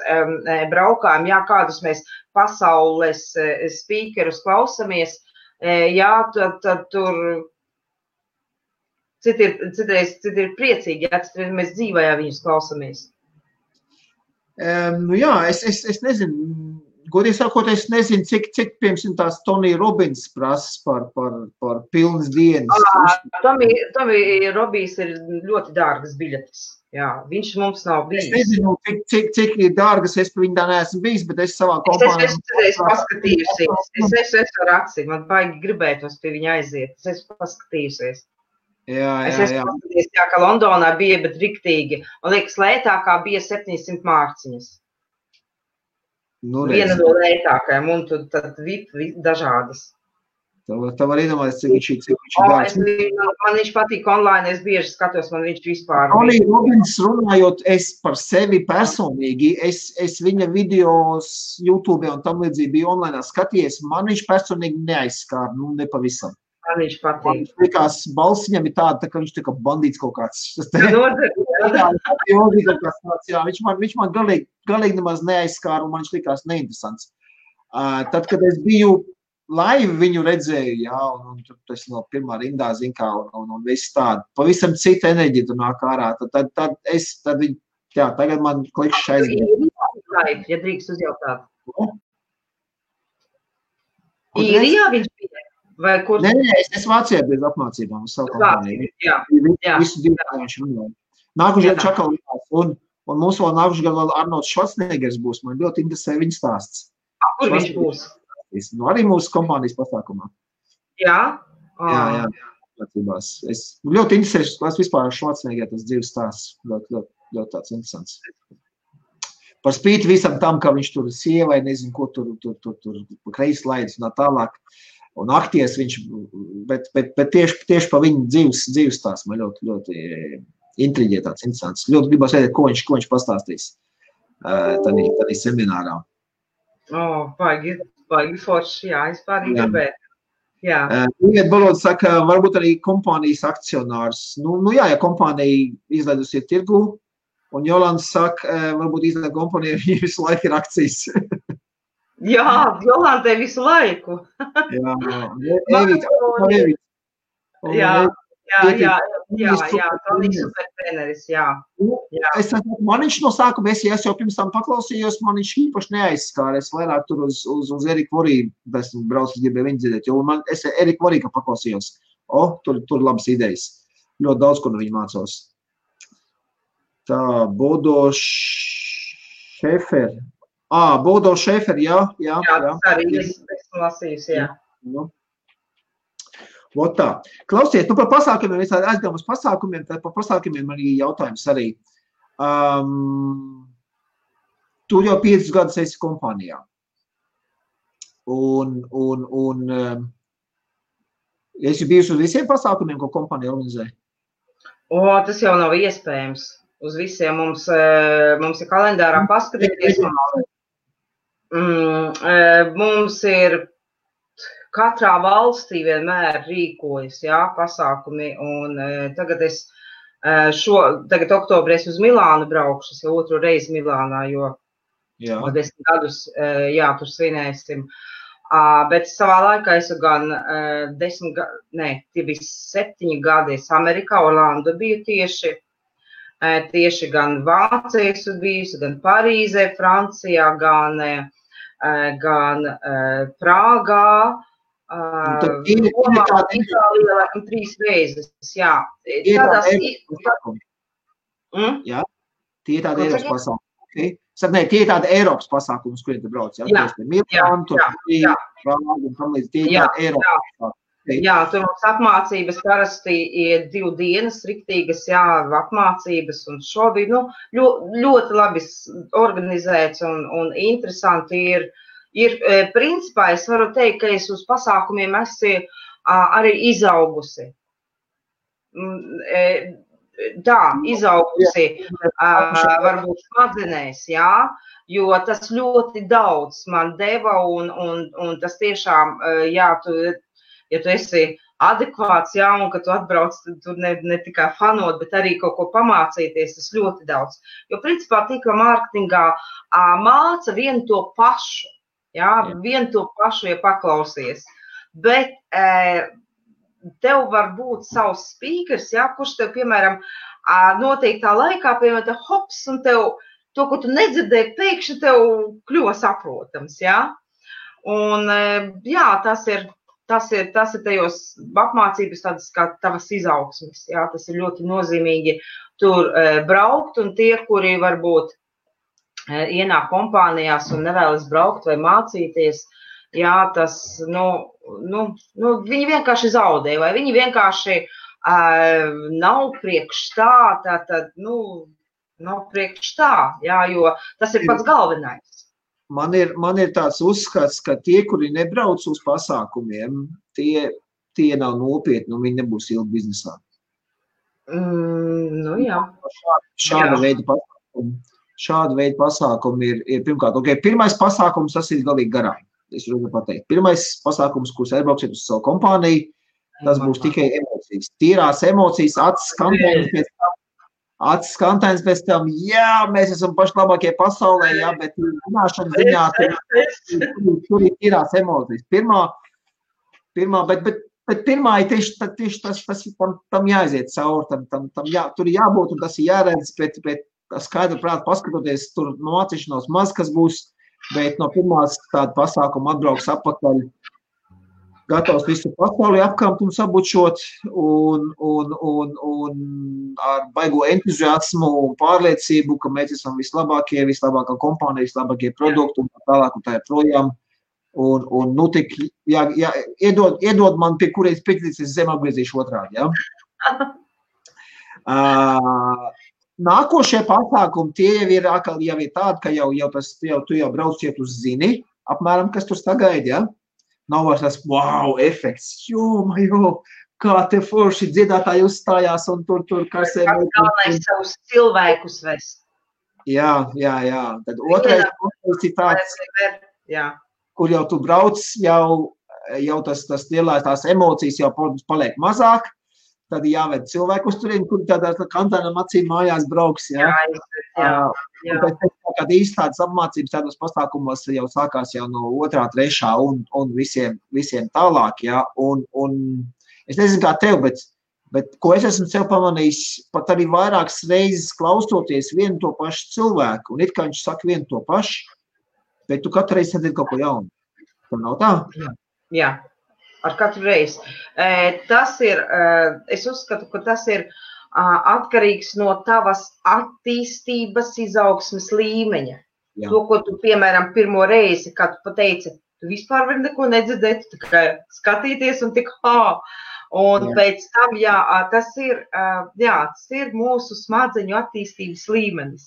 braukājam, kādus mēs pasaules spīkerus klausamies, tad tur citreiz ir priecīgi, citreiz mēs dzīvajā viņus klausamies. Es nezinu. Godīgi sakot, es nezinu, cik piemēram tās Tony Robbins prasas par pilnas dienas. Tony Robbins ir ļoti dārgas biļetes. Jā, viņš mums nav bijis. Es nezinu, cik ir dārgas, es par viņu tā neesmu bijis, bet es savā kompānijā... Es paskatījusies. Es varu atsīt, man baigi gribētos pie viņa aiziet. Es esmu paskatījusies. Es esmu paskatījusies, ka Londonā bija, bet riktīgi. Man liekas, lētākā bija 700 mārciņas. Viena no lētākajām, un tad dažādas. Tā var iedomāties, cik viņš ir dārgs. Man viņš patīk online, es bieži skatos, man viņš vispār... Tony Robbins runājot, es par sevi personīgi, es viņa videos YouTube un tam līdzīgi biju online skatījies, man viņš personīgi neaizskāra, nepavisam. Man viņš patīk. Man likās, balss viņam ir tāda, ka viņš tā kā bandīts kaut kāds. Viņš man galīgi nemaz neaizskāra, un man viņš likās neinteresants. Tad, kad es biju live viņu redzēju, un tas no pirmā rindā, un viss tāda, pavisam cita enerģija tur nāk ārā, tagad man klikšs aizgāja. Ja drīkst uzjautāt. Īrijā viņš bija? Vai kur? Nē, es Vācijā bez apmācībām uz savu kompāniju. Visu divu viņš runāja. Nākušajā čakalījās, un mums vēl nākušajā vēl Arnolds Švarcnegers būs. Man ļoti interesē viņa stāsts. Kur viņš būs? Arī mūsu kompānijas pasākumā. Jā? Jā. Es ļoti interesēšu, kas vispār Švarcneger tas dzīves stāsts. Ļoti tāds interesants. Par spīti visam tam, ka viņš tur sievai, nezinu, ko tur kreis laidis un tā tālāk. Un akties viņš, bet tieši pa viņu dzīves stāsts man ļoti intriģē tāds interesants. Ļoti gribas redzēt, ko viņš pastāstīs tādā seminārā. Baigi forši, es pārīgi gribētu. Iet Baloda saka, varbūt arī kompānijas akcionārs. Ja kompānija izlaidusi ir tirgu, un Jolanda saka, varbūt izlaid kompānija, viņa visu laiku ir akcijas. Jā, Jolandai visu laiku. Tony supertreneris, Man viņš no sākuma, es jau pirms tam paklausījos, man viņš īpaši neaizskāra. Es vairāk tur uz Eriku Voriju, esmu braucis gribēju viņu dzirdēt, jo es Eriku Voriju paklausījos. Tur labas idejas. Ļoti daudz, ko no viņa mācos. Tā, Bodo Šeferi. Bodo Šeferi, jā. Tas arī esmu lasījis, jā. Vot tā. Klausiet, par pasākumiem, es aizgājām uz pasākumiem, tad par pasākumiem arī jautājums arī. Tu jau 5 gadus esi kompānijā. Un esi bijusi uz visiem pasākumiem, ko kompānija organizē? Tas jau nav iespējams. Uz visiem mums ir kalendārā paskatīties. Mums ir katrā valstī vienmēr rīkojas, pasākumi, un tagad oktobrī es uz Milānu braukšu, es jau otru reizi Milānā, jo 10 gadus, tur svinēsim. Bet savā laikā esmu gan 7 gadi Amerikā, Orlando biju tieši, tieši gan Vācijā bijusi, gan Parīzē, Francijā, gan Prāgā, Romā, Itālijā, laikam 3 reizes, jā. Jā, tie ir tādi Eiropas pasākumi. Okay. Nē, tie ir tādi Eiropas pasākumi, uz kuriem tu brauc, jā? Jā, tur mums apmācības parasti ir 2 dienas riktīgas, jā, apmācības, un šobrīd, ļoti labi organizēts un interesanti ir, principā, es varu teikt, ka es uz pasākumiem esmu arī izaugusi. Izaugusi varbūt smadzenēs, jā, jo tas ļoti daudz man deva, un tas tiešām, jā, ja tu esi adekvāts, jā, un ka tu atbrauc, tur ne tikai fanot, bet arī kaut ko pamācīties, tas ļoti daudz. Jo, principā, tīkla mārketingā māca vienu to pašu, jā, vienu to pašu, ja paklausies. Bet tev var būt savs speakers, jā, kurš tev, piemēram, noteiktā laikā, piemēram, te hops, un tev to, ko tu nedzirdēji, pēkšņi tev kļuva saprotams, jā. Un, jā, tas ir tajos apmācības tādas kā tavas izaugsmes, jā, tas ir ļoti nozīmīgi tur braukt, un tie, kuri varbūt ienāk kompānijās un nevēlas braukt vai mācīties, jā, tas, viņi vienkārši zaudē, vai viņi vienkārši nav priekš tā, nav priekš tā, jā, jo tas ir pats galvenais. Man ir tāds uzskats, ka tie, kuri nebrauc uz pasākumiem, tie nav nopietni, un viņi nebūs ilgi biznesā. Jā. Šāda veida pasākumi ir pirmkārt. Okay, pirmais pasākums, tas ir galīgi garām. Es varu pateikt. Pirmais pasākums, kurus aizbrauksiet uz savu kompāniju, tas būs tikai emocijas. Tīrās emocijas, acis skantēns pēc tam, jā, mēs esam paši labākie pasaulē, jā, bet runāšana ziņā tur ir tīrās emocijas. Bet pirmā ir tieši tas tam jāiziet cauri, tur ir jābūt un tas ir jāredz, bet skaidri prāt paskatoties, tur mācīšanos maz, kas būs, bet no pirmās tāda pasākuma atbrauks atpakaļ, gatavs visu pasauli apkamt un sabučot un ar baigo entuziasmu un pārliecību, ka mēs esam vislabākā kompānija, vislabākie produkti un tālāk un tā ir projām. Un tik, iedod man, pie kuriem piekrītas, es zem apgriezīšu otrādi, jā? Nākošie pasākumi, tie jau ir tādi, ka tu jau brauc, ja tu zini, apmēram, kas tur sagaida, jā? Nav vairs tas wow efekts, kā te forši dziedātāji uzstājās un tur karsē. Galvenais savus cilvēkus vest. Jā. Tad otrais ir tāds, kur jau tu brauc, jau tas lielās tās emocijas jau paliek mazāk, tad jāved cilvēku uz turien, kuri tādā kantēnam acīm mājās brauks, jā. Kad īsti tādas apmācības tādos pasākumos jau sākās jau no 2., 3. un visiem tālāk, jā, un es nezinu kā tev, bet ko es esmu sev pamanījis, pat arī vairākas reizes klausoties vienu to pašu cilvēku, un it kā viņš saka vienu to pašu, bet tu katru reizi sadzirdi kaut ko jaunu. Tur nav tā? Jā, ar katru reizi. Tas ir, es uzskatu, ka tas ir atkarīgs no tavas attīstības izaugsmes līmeņa. Jā. To, ko tu, piemēram, pirmo reizi, kad tu pateici, tu vispār vari neko nedzirdēt, tu tikai skatīties un tik Un pēc tam, tas ir mūsu smadzeņu attīstības līmenis.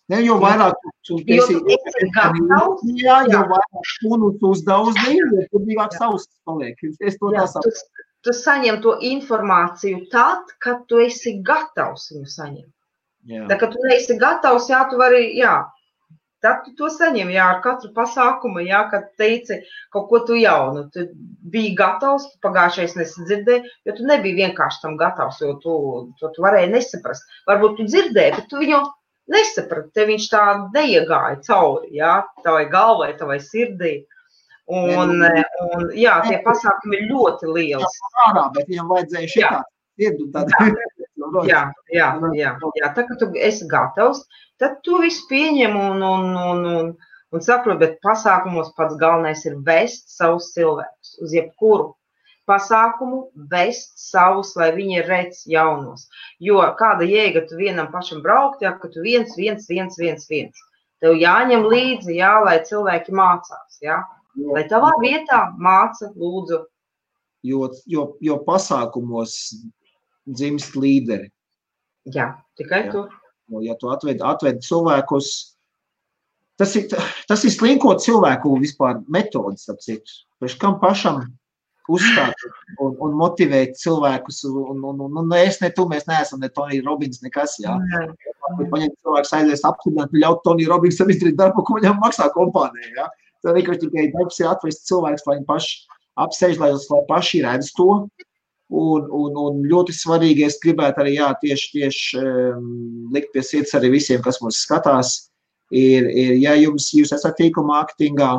Ne, jo vairāk tu esi gatavs, jo vairāk šunus uzdaudzi, jo tur vīgāk savs paliek. Es to nesaku. Tu saņem to informāciju tad, kad tu esi gatavs viņu saņemt. Tā, kad tu neesi gatavs, tu vari, tad tu to saņem, ar katru pasākumu, kad teici kaut ko tu jaunu. Tu biji gatavs, tu pagājušais nesadzirdēji, jo tu nebija vienkārši tam gatavs, jo tu varēji nesaprast. Varbūt tu dzirdēji, bet tu viņu nesaprati, te viņš tā neiegāja cauri, tavai galvai, tavai sirdī. Un tie pasākumi ir ļoti liels. Bet viņam vajadzēja šitā sirdu tad. Jā. Tā, ka tu esi gatavs, tad tu visu pieņem un saprot, bet pasākumos pats galvenais ir vest savus cilvēkus uz jebkuru pasākumu, vest savus, lai viņi redz jaunos. Jo kāda jēga tu vienam pašam braukt, ka tu viens. Tev jāņem līdzi, lai cilvēki mācās, Lai tavā vietā māca, lūdzu. Jo pasākumos dzimst līderi. Jā, tikai tur. Ja tu atved cilvēkus, tas ir slinkot cilvēku vispār metodas, apciet. Pēc kam pašam uzstāt un motivēt cilvēkus, es ne tu, mēs neesam ne Tony Robbins, nekas, Paņemt cilvēkus aizies apstiprināt, ļaut Tony Robbinsam izdarīt darbu, ko viņam maksā kompānija, Tā vienkārši tikai darbs ir atvest cilvēkus, lai viņi paši apsēž, lai paši redz to, un ļoti svarīgi, es gribētu arī, tieši likt pie sirds arī visiem, kas mūs skatās, ir ja jūs esat tīkuma mārketingā,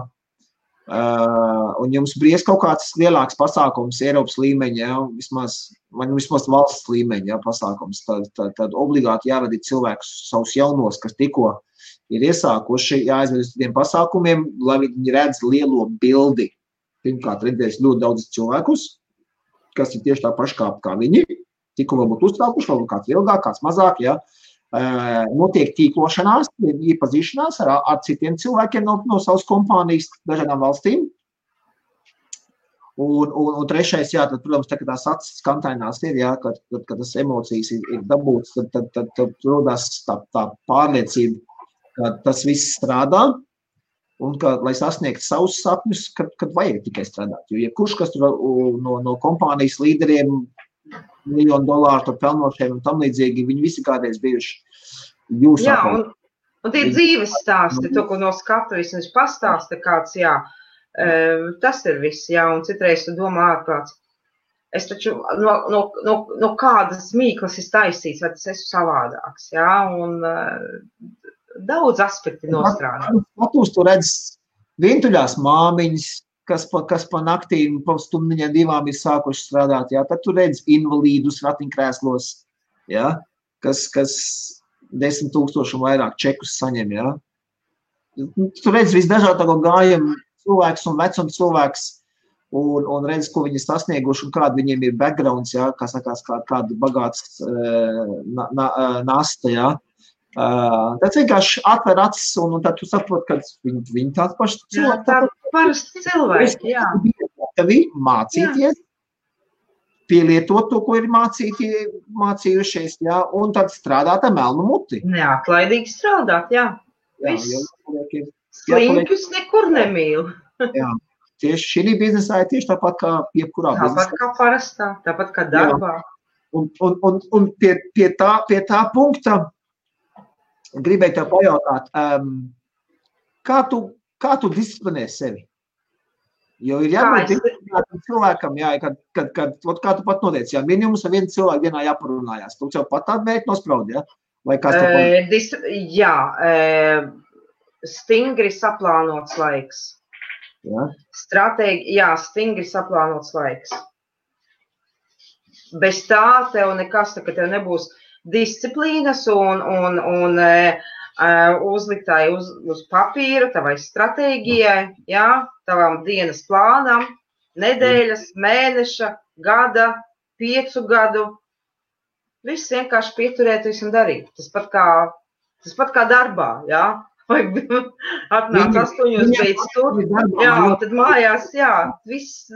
un jums bries kaut kāds lielāks pasākums Eiropas līmeņa, vismaz valsts līmeņa pasākums, tad obligāti jāvadīt cilvēkus savus jaunos, kas tikko ir iesākuši, jāaizved uz tiem pasākumiem, lai viņi redz lielo bildi. Pirmkārt, redzēs ļoti daudz cilvēkus, kas ir tieši tā paši kā viņi, tikko varbūt uzsākuši, varbūt kāds ilgāk, kāds mazāk, Notiek tīklošanās, iepazīšanās ar citiem cilvēkiem no savas kompānijas dažādām valstīm. Un trešais, tad, protams, tā, kad tās acis kantainās ir, kad tas emocijas ir dabūtas, tad rodās tā pārliecība, ka tas viss strādā un ka, lai sasniegtu savus sapņus, kad vajag tikai strādāt. Jo jebkurš, kas no kompānijas līderiem, $1 miljonu pelnošiem un tam līdzīgi, viņi visi kādreiz bijuši jūsu apkārt. Un tie dzīves stāsti, to, ko no skatu vismaz pastāsta kāds, tas ir viss, un citreiz tu domā ārprāts. Es taču no kādas mīklas ir taisīts, vai tas esmu savādāks, un daudz aspekti nostrādā. Skatūs tu redz vientuļās māmiņas, kas pa naktīm, pa stundiņām 2 ir sākuši strādāt, tad tu redz invalīdus ratiņkrēslos, kas 10,000 un vairāk čekus saņem, Tu redz visdažādāko gājumu cilvēks un vecums cilvēks un redz, ko viņi sasnieguši un kāda viņiem ir backgrounds, kā sakās, kāda bagāts nasta, Tad vienkārši atver acis un tad tu saproti, ka viņi tāds paši cilvēki. Tādi parasti cilvēki, Tev ir mācīties, pielietot to, ko ir mācījušies, un tad strādāt ar melnu muti. Neatlaidīgi strādāt, Viss. Sliņķus nekur nemīl. Tieši šī biznesā ir tieši tāpat kā jebkurā biznesā. Tāpat kā parastā, tāpat kā darbā. Un pie tā punkta gribēju tev pajautāt, kā tu disciplinē sevi? Jo ir jābūt disciplinētam cilvēkam, kā tu pat noteici, minimums ar vienu cilvēku dienā jāparunājās. Tu jau pat tādu mērķi nospraudi, Vai kāds stingri saplānots laiks. Stingri saplānots laiks. Bez tā tev nekas, ka tev nebūs disciplīnas un uzliktāji uz papīra, tavai stratēģijai, tavam dienas plānam, nedēļas, mēneša, gada, 5 gadu. Viss vienkārši pieturēties un darīt. Tas pat kā darbā, Vai atnāc 8 beidz tur, tad mājās, viss.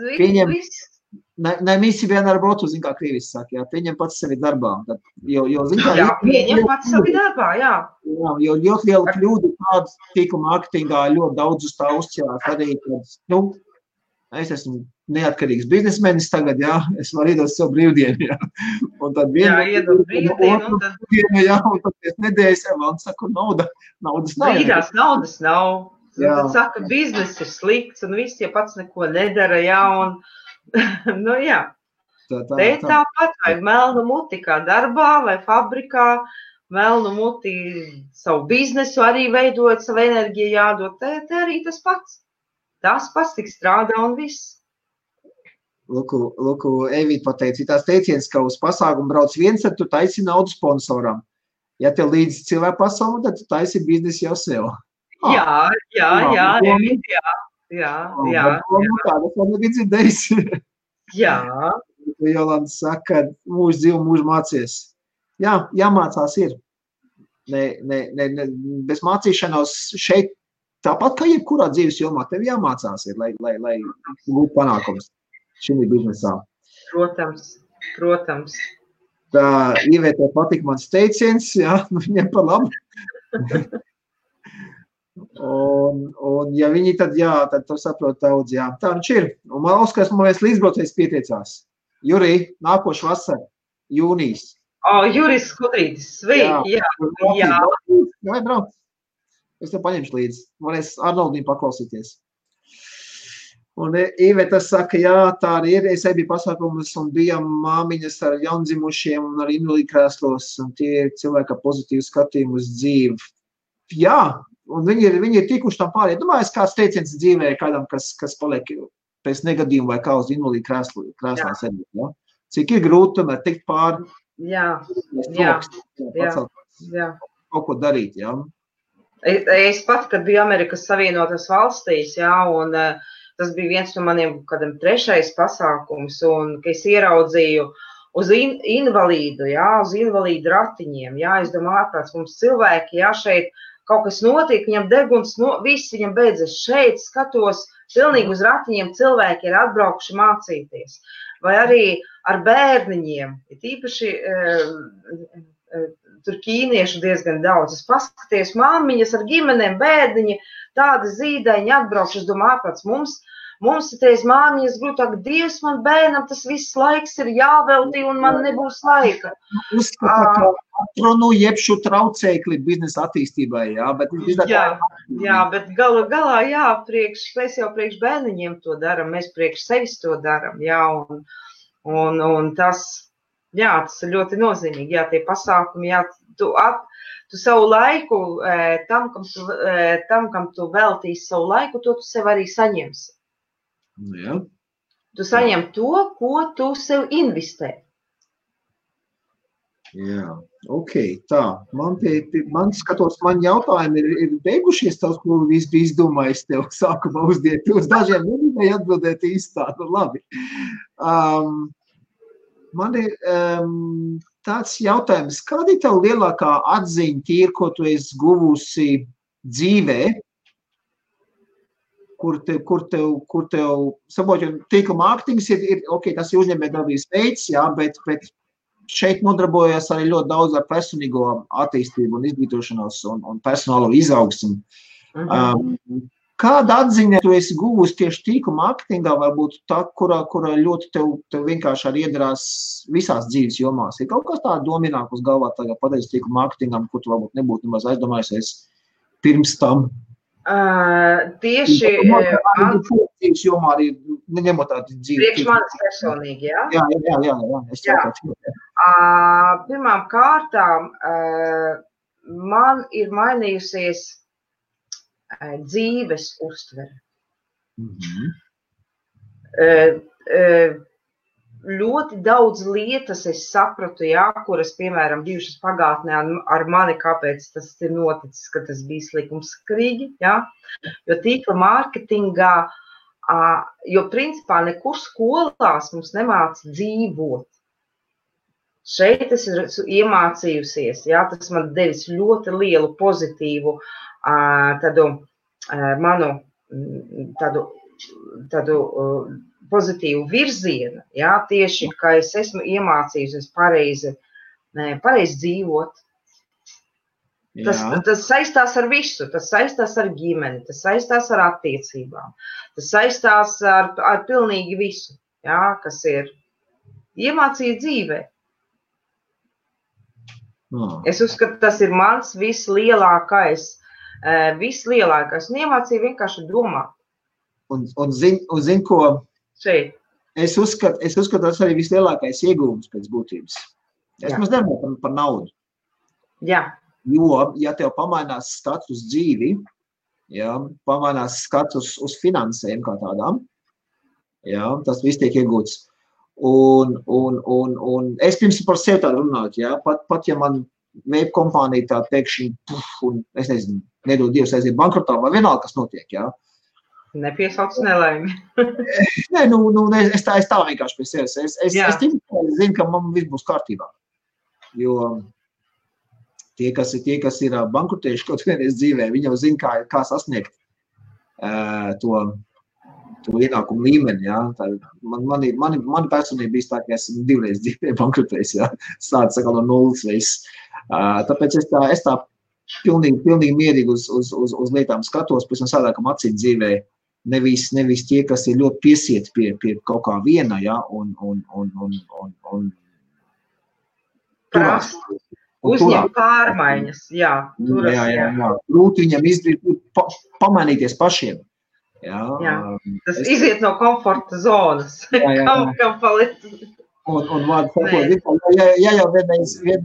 Ne visi vienmēr brotu, kā krīvis saka, pieņem pats sevi darbā. Pieņem pats sevi darbā, Jo ļoti liela kļūda tāda tīkuma mārketingā ļoti daudz uz tā uzķērās arī, kad, es esmu neatkarīgs biznesmenis tagad, es varu iedot sev brīvdienu, Un tad iedot brīvdienu, un tad pēc nedēļas, un saku, naudas nav. Brīdās naudas nav. Tad saka, biznes ir slikts, un viss, pats neko nedara, un Te tāpat vajag melnu muti kā darbā vai fabrikā, melnu muti savu biznesu arī veidot, savu enerģiju jādod, te arī tas pats. Tas pats tik strādā un viss. Lūku, Evīt pateica, tās teiciens, ka uz pasākumu brauc viens, tad tu taisi naudu sponsoram. Ja tev līdz cilvēku pasauli, tad tu taisi biznesu jau sev. Jā, Evīt, jā. Tāda man nebija dzirdējusi. Jā. Jolanta saka, mūžu dzīvu, mūžu mācies. Jā, jāmācās ir. Bez mācīšanos šeit, tāpat kā jebkurā dzīves jomā, tev jāmācās ir, lai būtu panākums šim biznesā. Protams. Tā Ivē, tev patika mans teiciens, jā, viņiem par labu. Un ja viņi tad, jā, tad tu saprot daudz, jā. Tā viņš ir. Un man Oskars, man viens līdzbraucējs pieteicās. Jurij, nākošu vasaru, jūnijas. Juris Skudrītis, sveiki, jā. Vai brauc? Es tev paņemšu līdzi. Varēs Arnoldīm paklausīties. Un Iveta saka, jā, tā arī ir. Es biju pasākumus un bijām māmiņas ar jaundzimušiem un ar invalīdu krēslos. Un tie ir cilvēki ar pozitīvu skatījumu uz dzīvi. Jā, un viņi ir tikuši tam pārējiem. Domāju, kāds teiciens dzīvē kādam, kas paliek pēc negadījuma vai kā uz invalīdu krēslā sēdēt. Ja? Cik ir grūti tomēr tikt pāri. Jā. Kaut ko darīt, jā. Es pat, kad biju Amerikas Savienotās valstīs, jā, un tas bija viens no maniem kādam 3. pasākums, un ka es ieraudzīju uz invalīdu, jā, uz invalīdu ratiņiem, jā, es domāju, ārprāts mums cilvēki, jā, šeit kaut kas notiek, viņam deguns, viss viņam beidzas šeit, skatos, pilnīgi uz ratiņiem cilvēki ir atbraukuši mācīties. Vai arī ar bērniņiem, ir īpaši tur ķīniešu diezgan daudz. Es paskaties, māmiņas ar ģimenēm, bērniņi, tādi zīdaiņi atbraukši. Es domāju, ārprāts, mums ir teiz māmiņas grūtāk, Dievs, man bērnam tas viss laiks ir jāveltī un man nebūs laika. Uzskata, ka atrunu jebšu traucēkli biznesa attīstībai, jā, bet... Jā, bet galā, jā, mēs jau priekš bērniņiem to daram, mēs priekš sevis to daram, jā, un tas, jā, tas ir ļoti nozīmīgi, jā, tie pasākumi, jā, tu savu laiku, tam, kam tu veltīsi savu laiku, to tu sev arī saņemsi. Jā. Tu saņem to, ko tu sev investē. Jā, ok, tā. Man skatos, man jautājumi ir beigušies tavs, ko viss bija izdomājis tev sākumā uzdiet. Tu uz dažiem nebija atbildēt īstā, nu labi. Man ir tāds jautājums, kāda ir tev lielākā atziņa tīri, ko tu esi guvusi dzīvē, kur tev saboķi, tīkla mārketings ir, ok, tas ir uzņēmējdarbības veids, jā, bet šeit nodarbojas arī ļoti daudz ar personīgo attīstību un izglītošanos un personālo izaugsmu. Kāda atziņa tu esi guvusi tieši tīkla mārketingā, varbūt tā, kura ļoti tev vienkārši arī iedarās visās dzīves jomās? Ir kaut kas tā domināk uz galvā tagad pateicis tīkla mārketingam, ko tu varbūt nebūtu nemaz aizdomājusies pirms tam? Tieši dzīves jomā arī neņemot tādu dzīvi. Priekš manis personīgi, jā? Jā. Pirmām kārtām man ir mainījusies dzīves uztvere. Ļoti daudz lietas es sapratu, jā, kuras, piemēram, bijušas pagātnē ar mani, kāpēc tas ir noticis, ka tas bija likumsakarīgi, jā, jo tīkla mārketingā, jo principā nekur skolās mums nemāca dzīvot. Šeit es esmu iemācījusies, jā, tas man devis ļoti lielu pozitīvu tādu pozitīvu virzienu, jā, tieši, ka es esmu iemācījusies pareizi dzīvot. Tas saistās ar visu, tas saistās ar ģimeni, tas saistās ar attiecībām, tas saistās ar pilnīgi visu, jā, kas ir iemācīt dzīvē. Es uzskatu, tas ir mans vislielākais, un iemācīju vienkārši domāt. Un zin ko? Šeit. Es uzskatu, tas arī vislielākais iegūms pēc būtības. Es maz nedomāju par naudu. Jā. Jo, ja tev pamainās skats uz dzīvi, ja, pamainās skats uz finansēm kā tādām, Jā, tas viss tiek iegūts. Un es pirms par sevi tādu runāju, jā, pat ja man vape kompānija tā pēkšņi, un es nezinu, nedod Dievs aiziet bankrotā, vai vienalga, kas notiek, jā. Nepiesauc nelaimi. Nē, es tā vienkārši pie sevis. Es zinu, ka man viss būs kārtībā. Jo tie, kas ir bankrotējuši kaut vienreiz dzīvē, viņi jau zina, kā sasniegt to ienākumu līmeni, jā. Mani personība bija tā, ka esmu 2 reizes dzīvē bankrotējis, jā. Sāc sakal no nulles viss. Tāpēc es tā pilnīgi mierīgi uz lietām skatos, pēc tam sādākam acīt dzīvē. Nevis tie, kas ir ļoti piesieti pie kaut kā viena, jā, un turās. Uzņem pārmaiņas, jā. Turas, jā. Grūti viņam izdarīt, pamainīties pašiem. Jā. Tas iziet no komforta zonas. Kam palikt. Un vārdu sakot, ja jau vienreiz, 2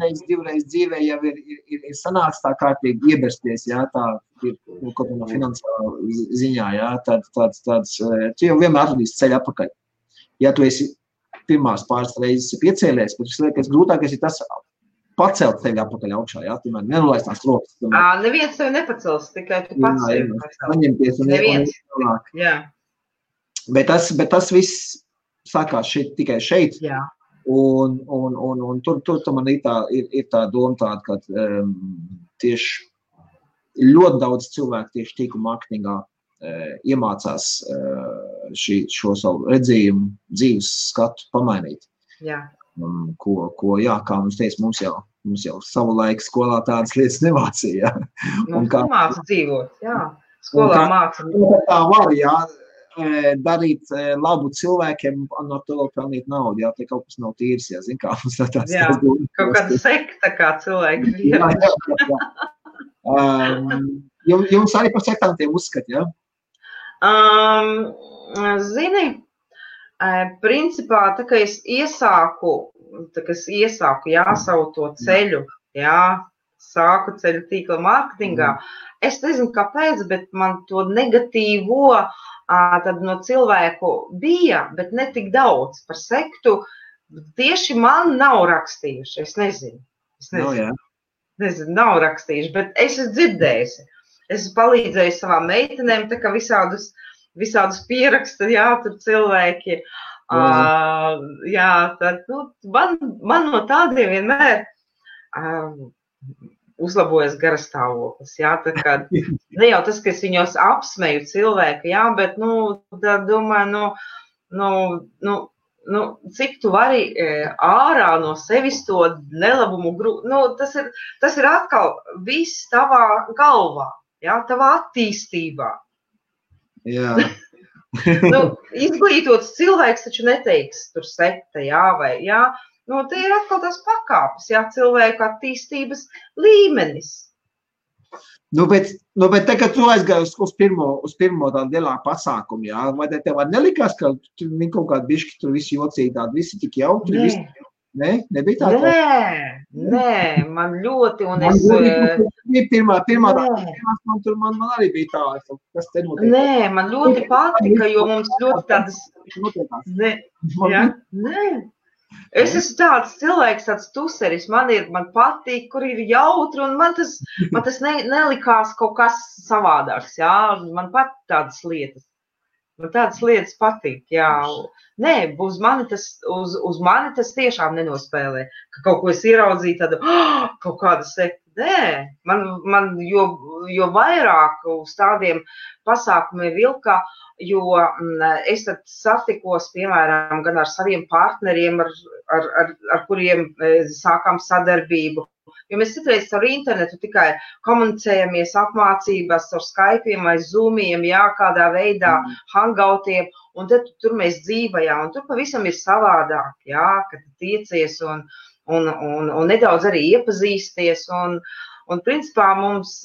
reizes dzīvē jau ir sanāks tā kārtīgi iebersties, jā, tā ir kaut no finansiālā ziņā, jā, tāds, tu jau vienmēr atradīsi ceļu atpakaļ. Ja tu esi pirmās pāris reizes piecēlies, bet liekas, grūtākais ir tas pacelt tevi atpakaļ augšā, jā, tu man nenolaist tās rokas. Neviens tevi nepacels, tikai tu pats sevi. Saņemties un ielāk. Jā. Bet tas viss sākās tikai šeit. Jā. Un tur man ir tā doma tāda, ka tieši ļoti daudz cilvēku tieši tīklu mārketingā iemācās šo savu redzījumu, dzīves skatu pamainīt. Jā. Kā mums teica, mums jau savu laiku skolā tādas lietas nemācīja. Mums māca dzīvot, jā. Skolā māca. Tā var, jā, darīt labu cilvēkiem, no to pelnīt naudu, jā, te kaut kas nav tīrs, jā, zin kā mums tāds. Jā, kaut kāda sekta kā cilvēki. Jā. Jums arī par sektantiem uzskat, jā? Zini, principā, tā kā es iesāku, savu to ceļu, jā, sāku ceļu tīkla mārketingā, es nezinu kāpēc, bet man to negatīvo tad no cilvēku bija, bet ne tik daudz par sektu, tieši man nav rakstījuši, es nezinu. Nezinu, nav rakstījuši, bet es esmu dzirdējusi. Es esmu palīdzējusi savām meitenēm, tā kā visādus pieraksta, jā, tur cilvēki. Jā, tad, man no tādiem vienmēr uzlabojas garastāvoklis, jā, tā kā, ne jau tas, ka es viņos apsmeju cilvēku, jā, bet, tad domāju, cik tu vari ārā no sevis to nelabumu tas ir atkal viss tavā galvā, jā, tavā attīstībā. Jā. Izglītots cilvēks taču neteiks tur sekta, jā, vai, jā. Te ir atkal tās pakāpes, jā, cilvēku attīstības līmenis. Bet tagad tu aizgāji uz pirmo tādu lielāku pasākumu, jā, vai tev nelikās, ka viņi kaut kādi bišķi tur visi jocīgi tādi, visi tik jautri, visi? Nē, nebija tā? Nē, man ļoti, un Pirmā man arī bija tā, kas te notiek. Nē, man ļoti patika, jo mums ļoti tādas... Nē. Es esmu tāds cilvēks, tāds tuseris, man patīk, kur ir jautri, un man tas nelikās kaut kas savādāks, jā, man pat tādas lietas. Man tādas lietas patīk, jā. Nē, uz mani tas tiešām nenospēlē, ka kaut ko es ieraudzīju tādu, kaut kādu sektu. Nē, man jo vairāk uz tādiem pasākumiem vilkā, jo es tad satikos, piemēram, gan ar saviem partneriem, ar kuriem sākām sadarbību. Jo mēs citreiz ar internetu tikai komunicējamies apmācībās ar Skype'iem vai Zoom'iem, jā, kādā veidā, hangoutiem, un tad tur mēs dzīvajām, un tur pavisam ir savādāk, jā, kad tiecies un nedaudz arī iepazīsties, un principā mums,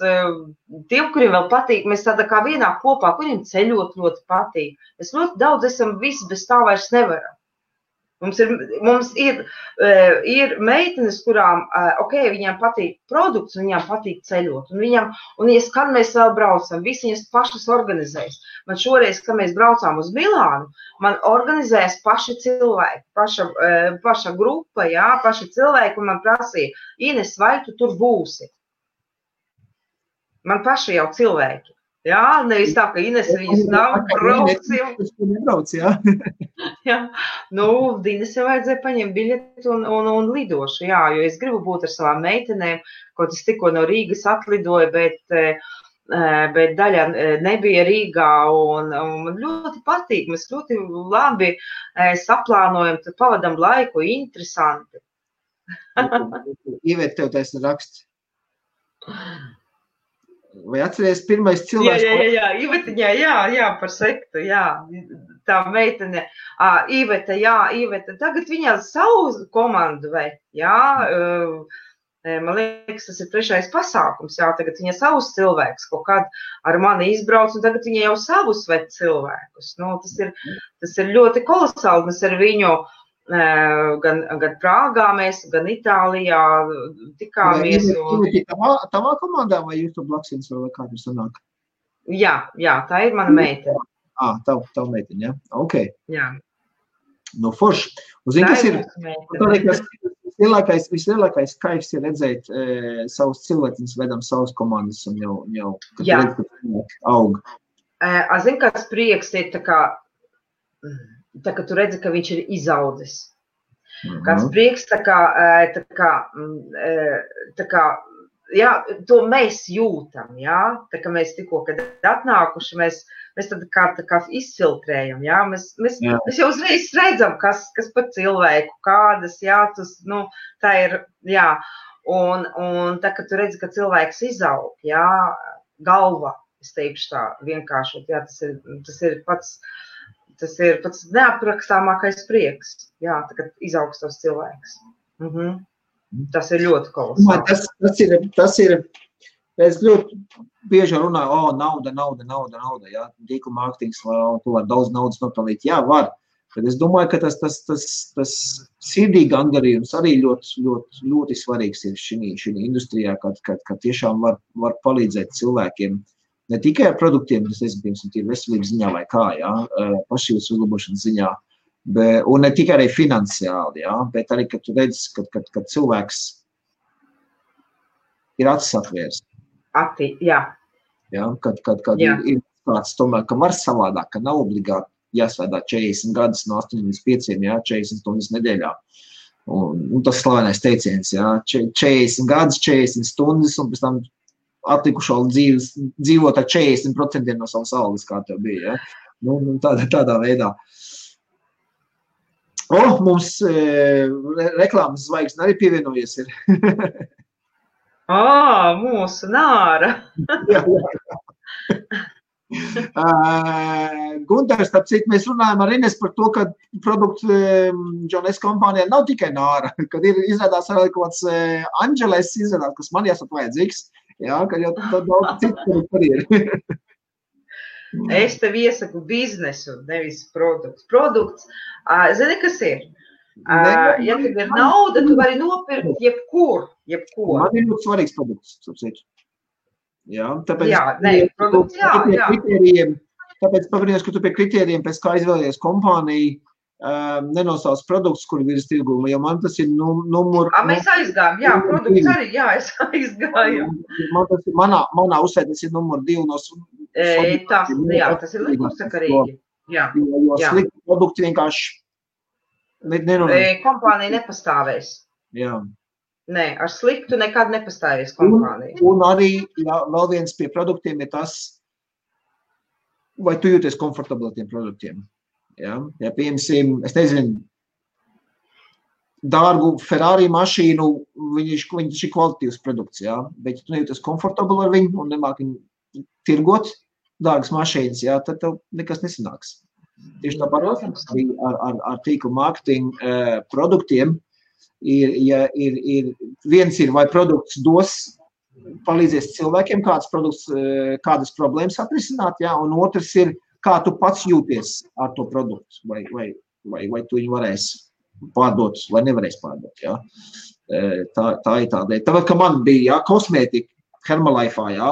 tiem, kuriem vēl patīk, mēs tādā kā vienā kopā, kuriem ceļot ļoti patīk. Mēs ļoti daudz esam visi bez tā vairs nevaram. Mums ir meitenes, kurām, viņām patīk produkts, un viņām patīk ceļot. Un kad mēs vēl braucam, visi viņas pašas organizējas. Man šoreiz, kad mēs braucām uz Milānu, man organizējas paši cilvēki, paša grupa, paši cilvēki, un man prasīja, Ines, vai tu tur būsi? Man paši jau cilvēki. Jā, nevis tā, ka Ines viņas nav braucim. Ines jau vajadzēja paņemt biļeti un lidošu, jo es gribu būt ar savām meitenēm, kaut es tikko no Rīgas atlidoju, bet daļa nebija Rīgā, un man ļoti patīk, mēs ļoti labi saplānojam, tad pavadam laiku, interesanti. Ivēt, tev taisni raksts. Vai atceries pirmais cilvēks? Jā, par sektu, tā meitene, Iveta, tagad viņa savu komandu vai, man liekas, tas ir 3. pasākums, tagad viņa savus cilvēkus kaut kād ar mani izbrauc, un tagad viņa jau savus ved cilvēkus, tas ir ļoti kolosāli, mēs ar viņu gan Prāgā mēs, gan Itālijā tikāmies. Tavā komandā vai jūs to blaksins vai kā tur sanāk? Jā, tā ir mana meitene. Tava meitene, jā? Ok. Jā. Nu, forši. Un zini, kas ir vislielākais kaifs ir redzēt savus cilvēciņus, vedam savus komandas un jau kad redz, ka aug. Zini, kāds prieks ir tā ka tu redzi, ka viņš ir izaudzis. Kāds prieks, to mēs jūtam, tā kā mēs tikko, kad atnākuši, mēs tad kā izfiltrējam, mēs jau uzreiz redzam, kas par cilvēku, kādas, tā ir, un tā, ka tu redzi, ka cilvēks izaug, galva, es teikšu tā vienkāršot, tas ir pats neaprakstāmākais prieks, tā, kad izaugs tos cilvēks. Tas ir ļoti kolosāli. Tas ir, es ļoti bieži runāju, nauda, tīkla mārketings, tu var daudz naudas nopelnīt. Jā, var, bet es domāju, ka tas sirdī gandarījums arī ļoti svarīgs ir šī industrijā, kad tiešām var palīdzēt cilvēkiem. Ne tikai ar produktiem, tas ir veselības ziņā vai kā, pašības uzlabošanas ziņā, un ne tikai arī finansiāli, bet arī, kad tu redzi, kad cilvēks ir acis atvērs. Kad ir kāds tomēr, ka var savādāk, ka nav obligāti jāsvēdā 40 gadus no 8 līdz 5, 40 stundas nedēļā. Un tas slavenais teiciens, 40 gadus, 40 stundas, un pēc tam atlikušo dzīvot ar 40% no savas algas, kā tev bija, tādā veidā. Mums reklāmas zvaigzne arī pievienojies ir. Mūsu Nāra. Gunters, tāpēc mēs runājam ar Ines par to, ka produktu Jones kompānijā nav tikai Nāra, kad ir izrādās arī kaut kāds Angeles izrādās, kas man jāsat vajadzīgs. Ka jau tad daudz citu par ir. Es tev iesaku biznesu, nevis produkts. Produkts, zini, kas ir? Ja tev ir nauda, tu vari nopirkt jebko. Man ir ļoti svarīgs produkts, sapsiet. Tāpēc, produkts, tāpēc pabrīnās, ka tu pie kritērijiem, pēc kā izvēlējies kompāniju, nenosauc produkts, kur virs tirguma, jo man tas ir numur... Mēs aizgājām, produkts arī, es aizgāju. Manā uzsē tas ir numur 2 no... Tas ir likumsakarīgi. Jo slikti produkti vienkārši... Kompānija nepastāvēs. Nē, ar sliktu nekad nepastāvēs kompānija. Un arī vēl viens pie produktiem ir tas, vai tu jūties komfortabli ar tiem produktiem. Ja, piemēram, es nezinu, dārgu Ferrari mašīnu, viņš ir kvalitatīvs produkts, bet ja tu nejūties komfortabli ar viņu un nemāk viņu tirgot dārgas mašīnas, tad tev nekas nesanāks. Tieši tāpat arī ar tīklu mārketingu produktiem viens ir, vai produkts palīdzēs cilvēkiem, kādas problēmas atrisināt, un otrs ir, kā tu pats jūties ar to produktu, vai tu viņu varēsi pārdot vai nevarēs pārdot. Ja? Tā ir tāda. Tāpēc, ka man bija kosmētika Herbalife, ja?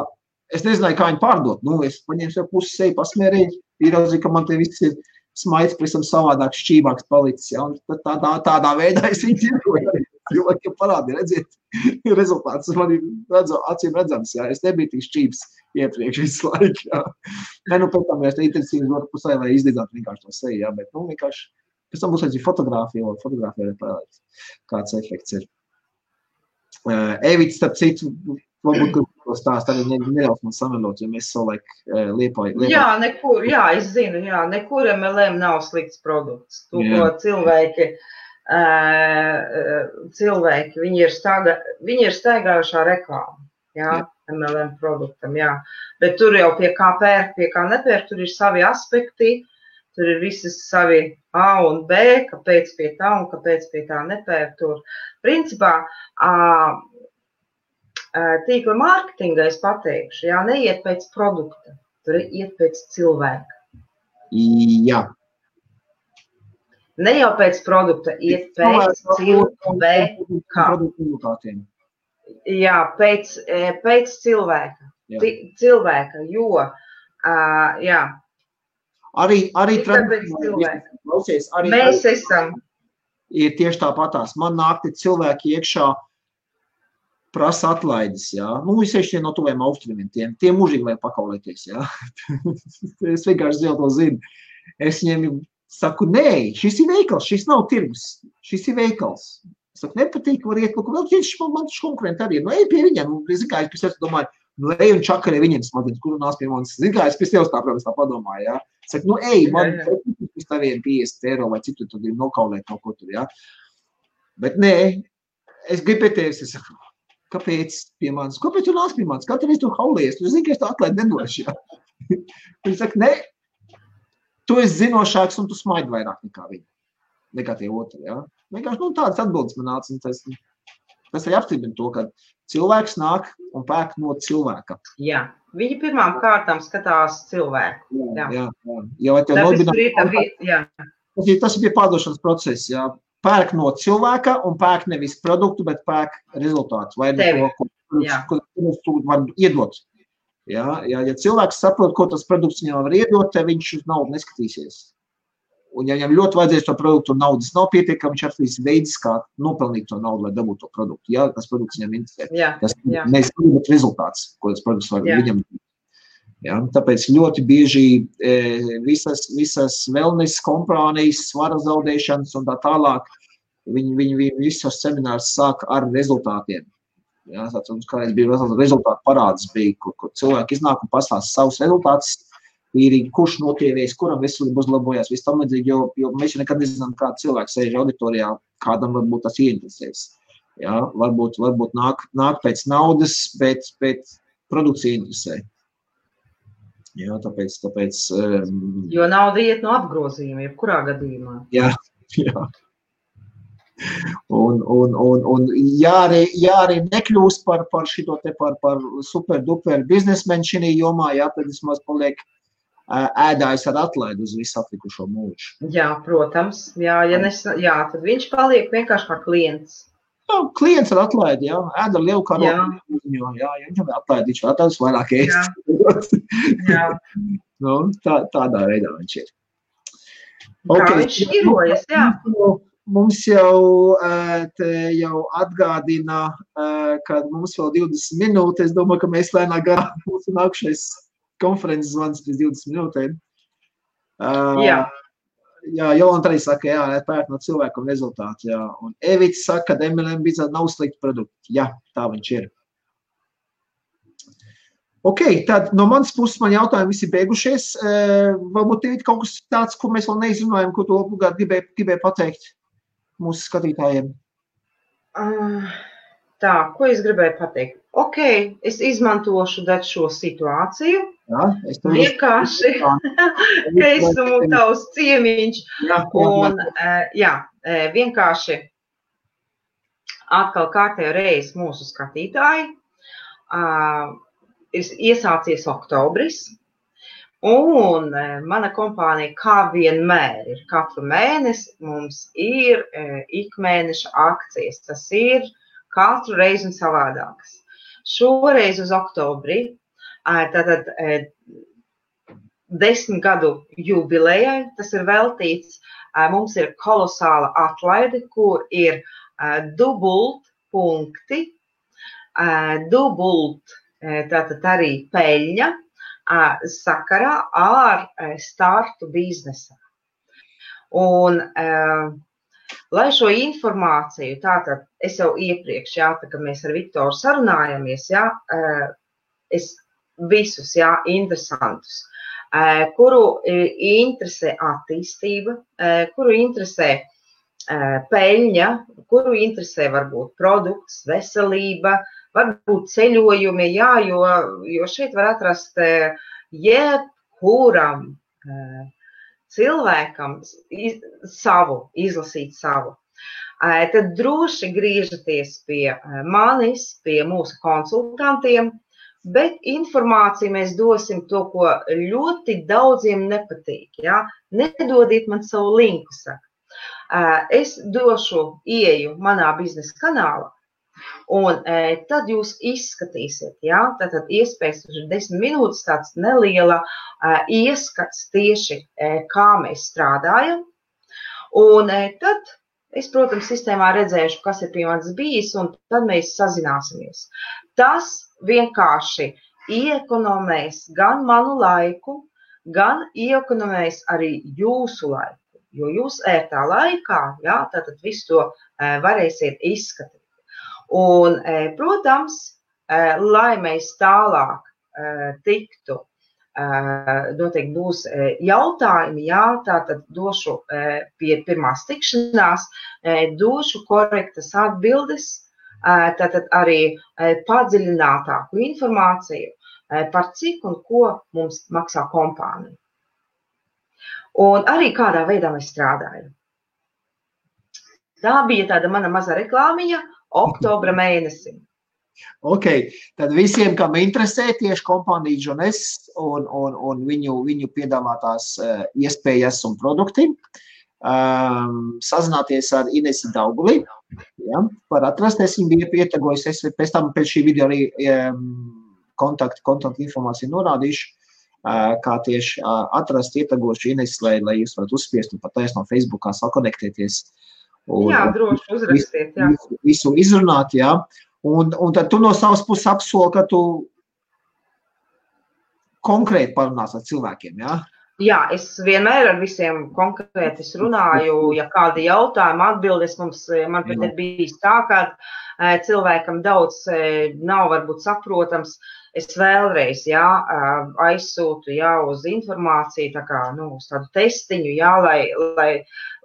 Es nezināju, kā viņu pārdot. Nu, es paņēmu sev pusi seju, pasmērēju, ieraudzīju, ka man te viss ir smaids, prisam savādāk šķībāks palicis. Ja? Un tādā veidā es viņu tirgoju. Cilvēki parādīja, redziet, rezultāts man ir acīm redzams. Ja? Es nebiju tik šķības iepriekš visu laiku. Ja? Ne, nu, pēc tam es intensīvi dotu pusē, lai izdedzētu vienkārši to seju. Ja? Bet, nu, vienkārši, pēc tam būs arī fotogrāfija arī parādīt, kāds efekts ir. Evits, starp citu, varbūt, ko stāst, arī neļaus man samelot, jo mēs savulaik Liepāju. Jā, nekur, jā, es zinu, jā, nekur MLM nav slikts produkts. To, ko cilvēki, viņi ir staigājušā reklāma, jā, MLM produktam, jā. Bet tur jau pie kā pērk, pie kā nepērk, tur ir savi aspekti, tur ir visi savi A un B, kāpēc pie tā un kāpēc pie tā nepērk tur. Principā, tīkla mārketinga es pateikšu, jā, neiet pēc produkta, tur iet pēc cilvēka. Jā. Ne jau pēc produkta, iet pēc cilvēka. Jā, pēc cilvēka. Cilvēka, jo, jā. Arī mēs esam. Ir tieši tāpatās. Man nākti cilvēki iekšā prasa atlaides, jā. Nu, visieši no tuviem austrumiem, tie mūžīgi vajag pakaulēties, jā. Es vienkārši to zinu. Es viņiem saku, nē, šis ir veikals, šis nav tirgus, šis ir veikals. Es saku, nepatīk, var iet, vēl viņš man konkurenti arī ir. Nu, ej pie viņiem, nu, es zinu, kā es pēc tevis domāju, nu, ej un čakarē viņiem smadzenes, kuru nāc pie manis. Zinu, kā es pēc tevis tā, protams, tā padomāju, jā. Es saku, nu, ej, man pēc taviem 50 eiro vai citu tad ir nokaulēt kaut ko tur, jā. Bet nē, es gribu pie tevis, es saku, kāpēc pie manis? Kāpēc tu nāc pie manis? Kā tev es tu haulies? Tu zini, ka es tā atlaidi nedošu, jā. Viņi saka, nē, tu esi zinošāks un tu smaidi vairāk nekā tie otri, jā. Vienkārši, nu, tādas atbildes man nāca, un tas arī apstiprina to, ka cilvēks nāk un pērk no cilvēka. Jā, viņi pirmām kārtām skatās cilvēku. Jā. Ja tas ir pie pārdošanas procesa, jā. Pērk no cilvēka un pērk nevis produktu, bet pērk rezultātu. Vai no to, ko tu var iedot. Ja cilvēks saprot, ko tas produkts viņam var iedot, tad viņš uz naudu neskatīsies. Un ja viņam ļoti vajadzēs to produktu un naudas nav pietiekami, viņš atradīs veidus, kā nopelnīt to naudu, lai dabūtu to produktu. Ja tas produkts viņam interesē. Tas nevis rezultāts, ko tas produkts var viņam. Ja, tāpēc ļoti bieži visas wellness kompānijas, svara zaudēšanas un tā tālāk, viņi visos seminārus sāk ar rezultātiem. Ja, tāds kādreiz bija rezultātu parāds, kur cilvēki iznāk un pastāsta savus rezultātus, kurš notievies, kuram veselība uzlabojās, viss tam līdzīgi, jo mēs jau nekad nezinām, kāda cilvēka sēž auditorijā, kādam varbūt tas ieinteresēs. Ja, varbūt nāk pēc naudas, bet produkts ieinteresē. Jā, tāpēc jo nauda iet no apgrozījuma, jebkurā gadījumā. Jā. Un arī nekļūst par šito te par super duper biznesmeni šī jomā, jā, tad vismaz paliek ēdājs ar atlaidu uz visu atlikušo mūžu. Jā, protams. Jā, tad viņš paliek vienkārši kā klients. Jā, klients ar atlaidi, jā. Ēd ar lielu karogu. Jā, viņam atlaidi, viņš atlaidus vairāk ēst. Jā. Nu, tādā veidā viņš ir. Kā viņš šķirojas, jā. Mums jau atgādina, ka mums vēl 20 minūtes. Es domāju, ka mēs lēnā garā mūsu nākušais konferences zvans pēc 20 minūtēm. Jā, Jolanta arī saka, jā, pērk no cilvēku un rezultātu, jā. Un Evits saka, ka MLM biznesā nav slikti produkti. Jā, tā viņš ir. Ok, tad no manas puses man jautājumi visi beigušies. Varbūt ir kaut kas tāds, ko mēs vēl neizrunājam, ko tu obligāti gribēji pateikt mūsu skatītājiem? Tā, ko es gribēju pateikt? Ok, es izmantošu šo situāciju. Jā, vienkārši, ka esmu tavs ciemiņš. Un, vienkārši atkal kārtējo reizi mūsu skatītāji. Ir iesācies oktobris. Un mana kompānija kā vienmēr ir katru mēnesi, mums ir ikmēneša akcijas. Tas ir katru reizi un savādākas. Šoreiz uz oktobri, tātad 10 gadu jubilejai, tas ir veltīts, mums ir kolosāla atlaide, kur ir dubult punkti, tātad arī peļņa, sakarā ar startu biznesā. Un, lai šo informāciju, tātad es jau iepriekš, tā kā mēs ar Viktoru sarunājamies, es visus, interesantus, kuru interesē attīstība, kuru interesē peļņa, kuru interesē varbūt produkts, veselība, varbūt ceļojumi, jo šeit var atrast jebkuram cilvēkam izlasīt savu. Tad droši griežaties pie manis, pie mūsu konsultantiem, bet informāciju mēs dosim to, ko ļoti daudziem nepatīk. Nedodiet man savu linku, saka. Es došu ieju manā biznesa kanālā, un tad jūs izskatīsiet, tātad iespējas ir 10 minūtes, tāds neliela ieskats tieši, kā mēs strādājam. Un tad es, protams, sistēmā redzēšu, kas ir pie manis bijis, un tad mēs sazināsimies. Tas vienkārši iekonomēs gan manu laiku, gan iekonomēs arī jūsu laiku, jo jūs ērtā laikā, tātad visu to varēsiet izskatīt. Un, protams, lai mēs tālāk tiktu, noteikti būs jautājumi, tātad došu pie pirmās tikšanās, došu korektas atbildes, tātad arī padziļinātāku informāciju par cik un ko mums maksā kompānija. Un arī kādā veidā mēs strādājam. Tā bija tāda mana maza reklāmiņa oktobra mēnesim. Ok, tad visiem, kam interesē tieši kompānija Džones un viņu piedāvātās iespējas un produkti, sazināties ar Inesi Dauguli. Var atrasties, viņa bija pietegojusies, pēc tam pēc šī video arī kontaktu informāciju norādīšu, kā tieši atrast ietegošu Inesi, lai jūs varat uzspiest un pat no Facebookā sakonektēties. Droši uzrakstiet, Visu izrunāt, Un tad tu no savas puses apsoli, ka tu konkrēti parunās ar cilvēkiem, Jā, es vienmēr ar visiem konkrēti runāju, ja kādi jautājumi atbildes man pat ir bijis tā, ka cilvēkam daudz nav varbūt saprotams, es vēlreiz, aizsūtu, uz informāciju, tā kā, uz tādu testiņu,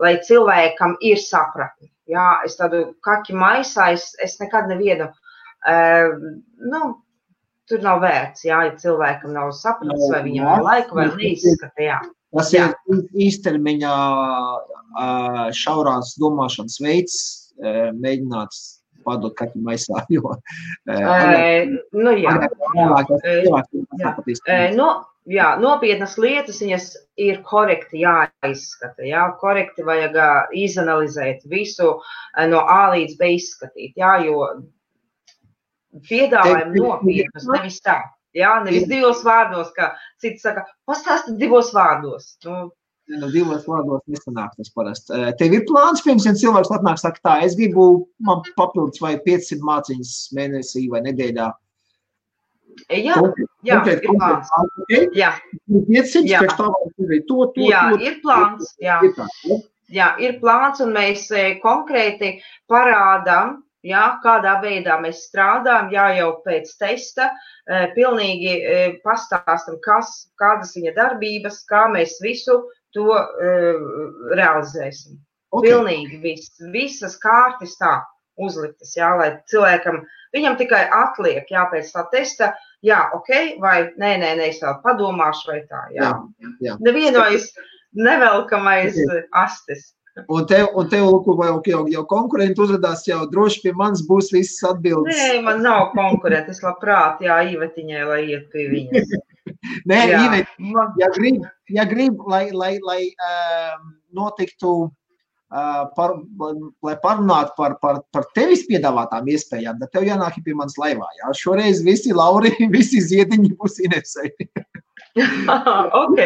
lai cilvēkam ir sapratni. Es tādu kaki maisā, es nekad nevienu, tur nav vērts, ja cilvēkam nav sapratis, vai viņam nav laika, vai neizskata, Tas ir īstermiņā šaurās domāšanas veids, mēģināt padot kaki maisā, jo... Nopietnas lietas, viņas ir korekti jāizskata, korekti vajag izanalizēt visu no A līdz B izskatīt, jo piedāvājam nopietnas, nevis tā, nevis 2 vārdos, kā citi saka, pastāsti 2 vārdos. Divos vārdos nesanāk tas parasti. Tev ir plāns, pirms, ja cilvēks atnāk, saka tā, es gribu, man papildus vai 500 māciņas mēnesī vai nedēļā. Jā, ir plāns. 500, pēc tā var ir plāns, ir plāns, un mēs konkrēti parādām, kādā veidā mēs strādājam, jau pēc testa, pilnīgi pastāstam, kādas viņa darbības, kā mēs visu to realizēsim. Pilnīgi visas kārtas tā uzliktas, lai cilvēkam, viņam tikai atliek, pēc tā testa, vai nē, es vēl padomāšu, vai tā, Nevienojas nevelkamais astes. Un tev jau konkurenti uzradās, jau droši pie manis būs visas atbildes. Nē, man nav konkurenti, es labprāt, Ivetiņai, lai iet pie viņas. Nē, Iveta, ja grib, lai notiktu, lai parunātu par tevis piedāvātām iespējām, tad tev jānāk pie manas laivā. Jā? Šoreiz visi Lauri, visi ziediņi būs Inesei. Ok.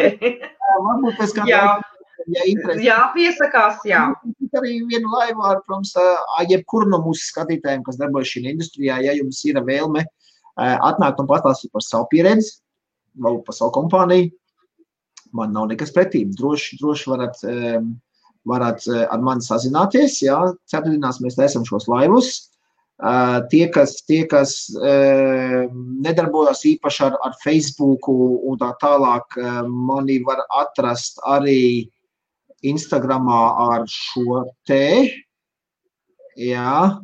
Varbūt pēc kādā jā, piesakās, jā. Arī vienu laivu ar, protams, jebkuru no mūsu skatītājiem, kas darbojas šī industrijā, ja jums ir vēlme atnākt un pastāstīt par savu pieredzi, vēl par savu kompāniju, man nav nekas pretī. Droši varat ar mani sazināties, jā, ceturtdienās mēs taisam šos laivus. Tie, kas nedarbojas īpaši ar Facebooku un tā tālāk, mani var atrast arī Instagramā ar šo te, jā,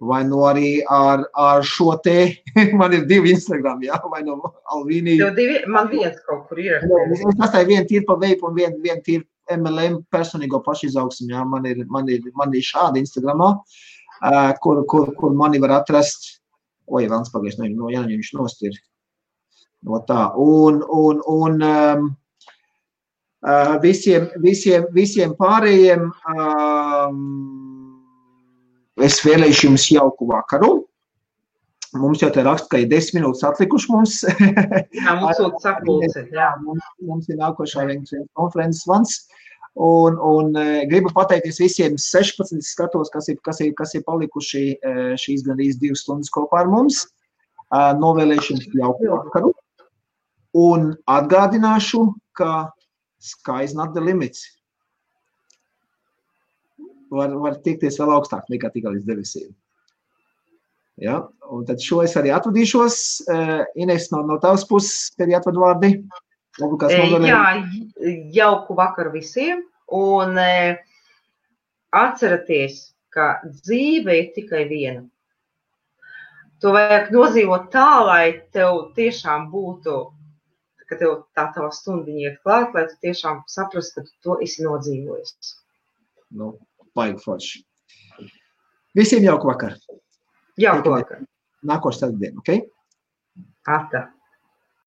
vai no arī ar šo te, man ir 2 Instagram, jā, vai no Alvīnī. Man viens kaut kur ir. Es tastāju vienu tīri pa veipu un vienu tīri MLM personīgo pašizaugsmu, jā, man ir šādi Instagramā, kur mani var atrast, vēlns pagaies, no Jāņa viņš nost ir, no tā, un visiem pārējiem es vēlēšu jums jauku vakaru. Mums jau te raksta, ka ir 10 minūtes atlikuši mums. Jā, mums sūt sapulci. Mums ir nākošā konferences vans. Un gribu pateikties visiem 16 skatos, kas ir palikuši šīs gandrīz 2 stundas kopā ar mums. Novēlēšu jums jauku vakaru. Un atgādināšu, ka sky is not the limits. Var tiekties vēl augstāk nekā tikai līdz debesīm. Ja? Un tad šo es arī atvadīšos. Ines, no tavas puses, tev jāatved vārdi. Jā, jauku vakaru visiem. Un atceraties, ka dzīve ir tikai viena. To vajag nodzīvot tā, lai tev tiešām būtu, ka tev tā tava stundiņa iet klāt, lai tu tiešām saprast, ka tu to esi nodzīvojis. Baigi forši. Visiem jauku vakaru. Jauku vakaru. Nākošu ceturtdienu, ok? Ata.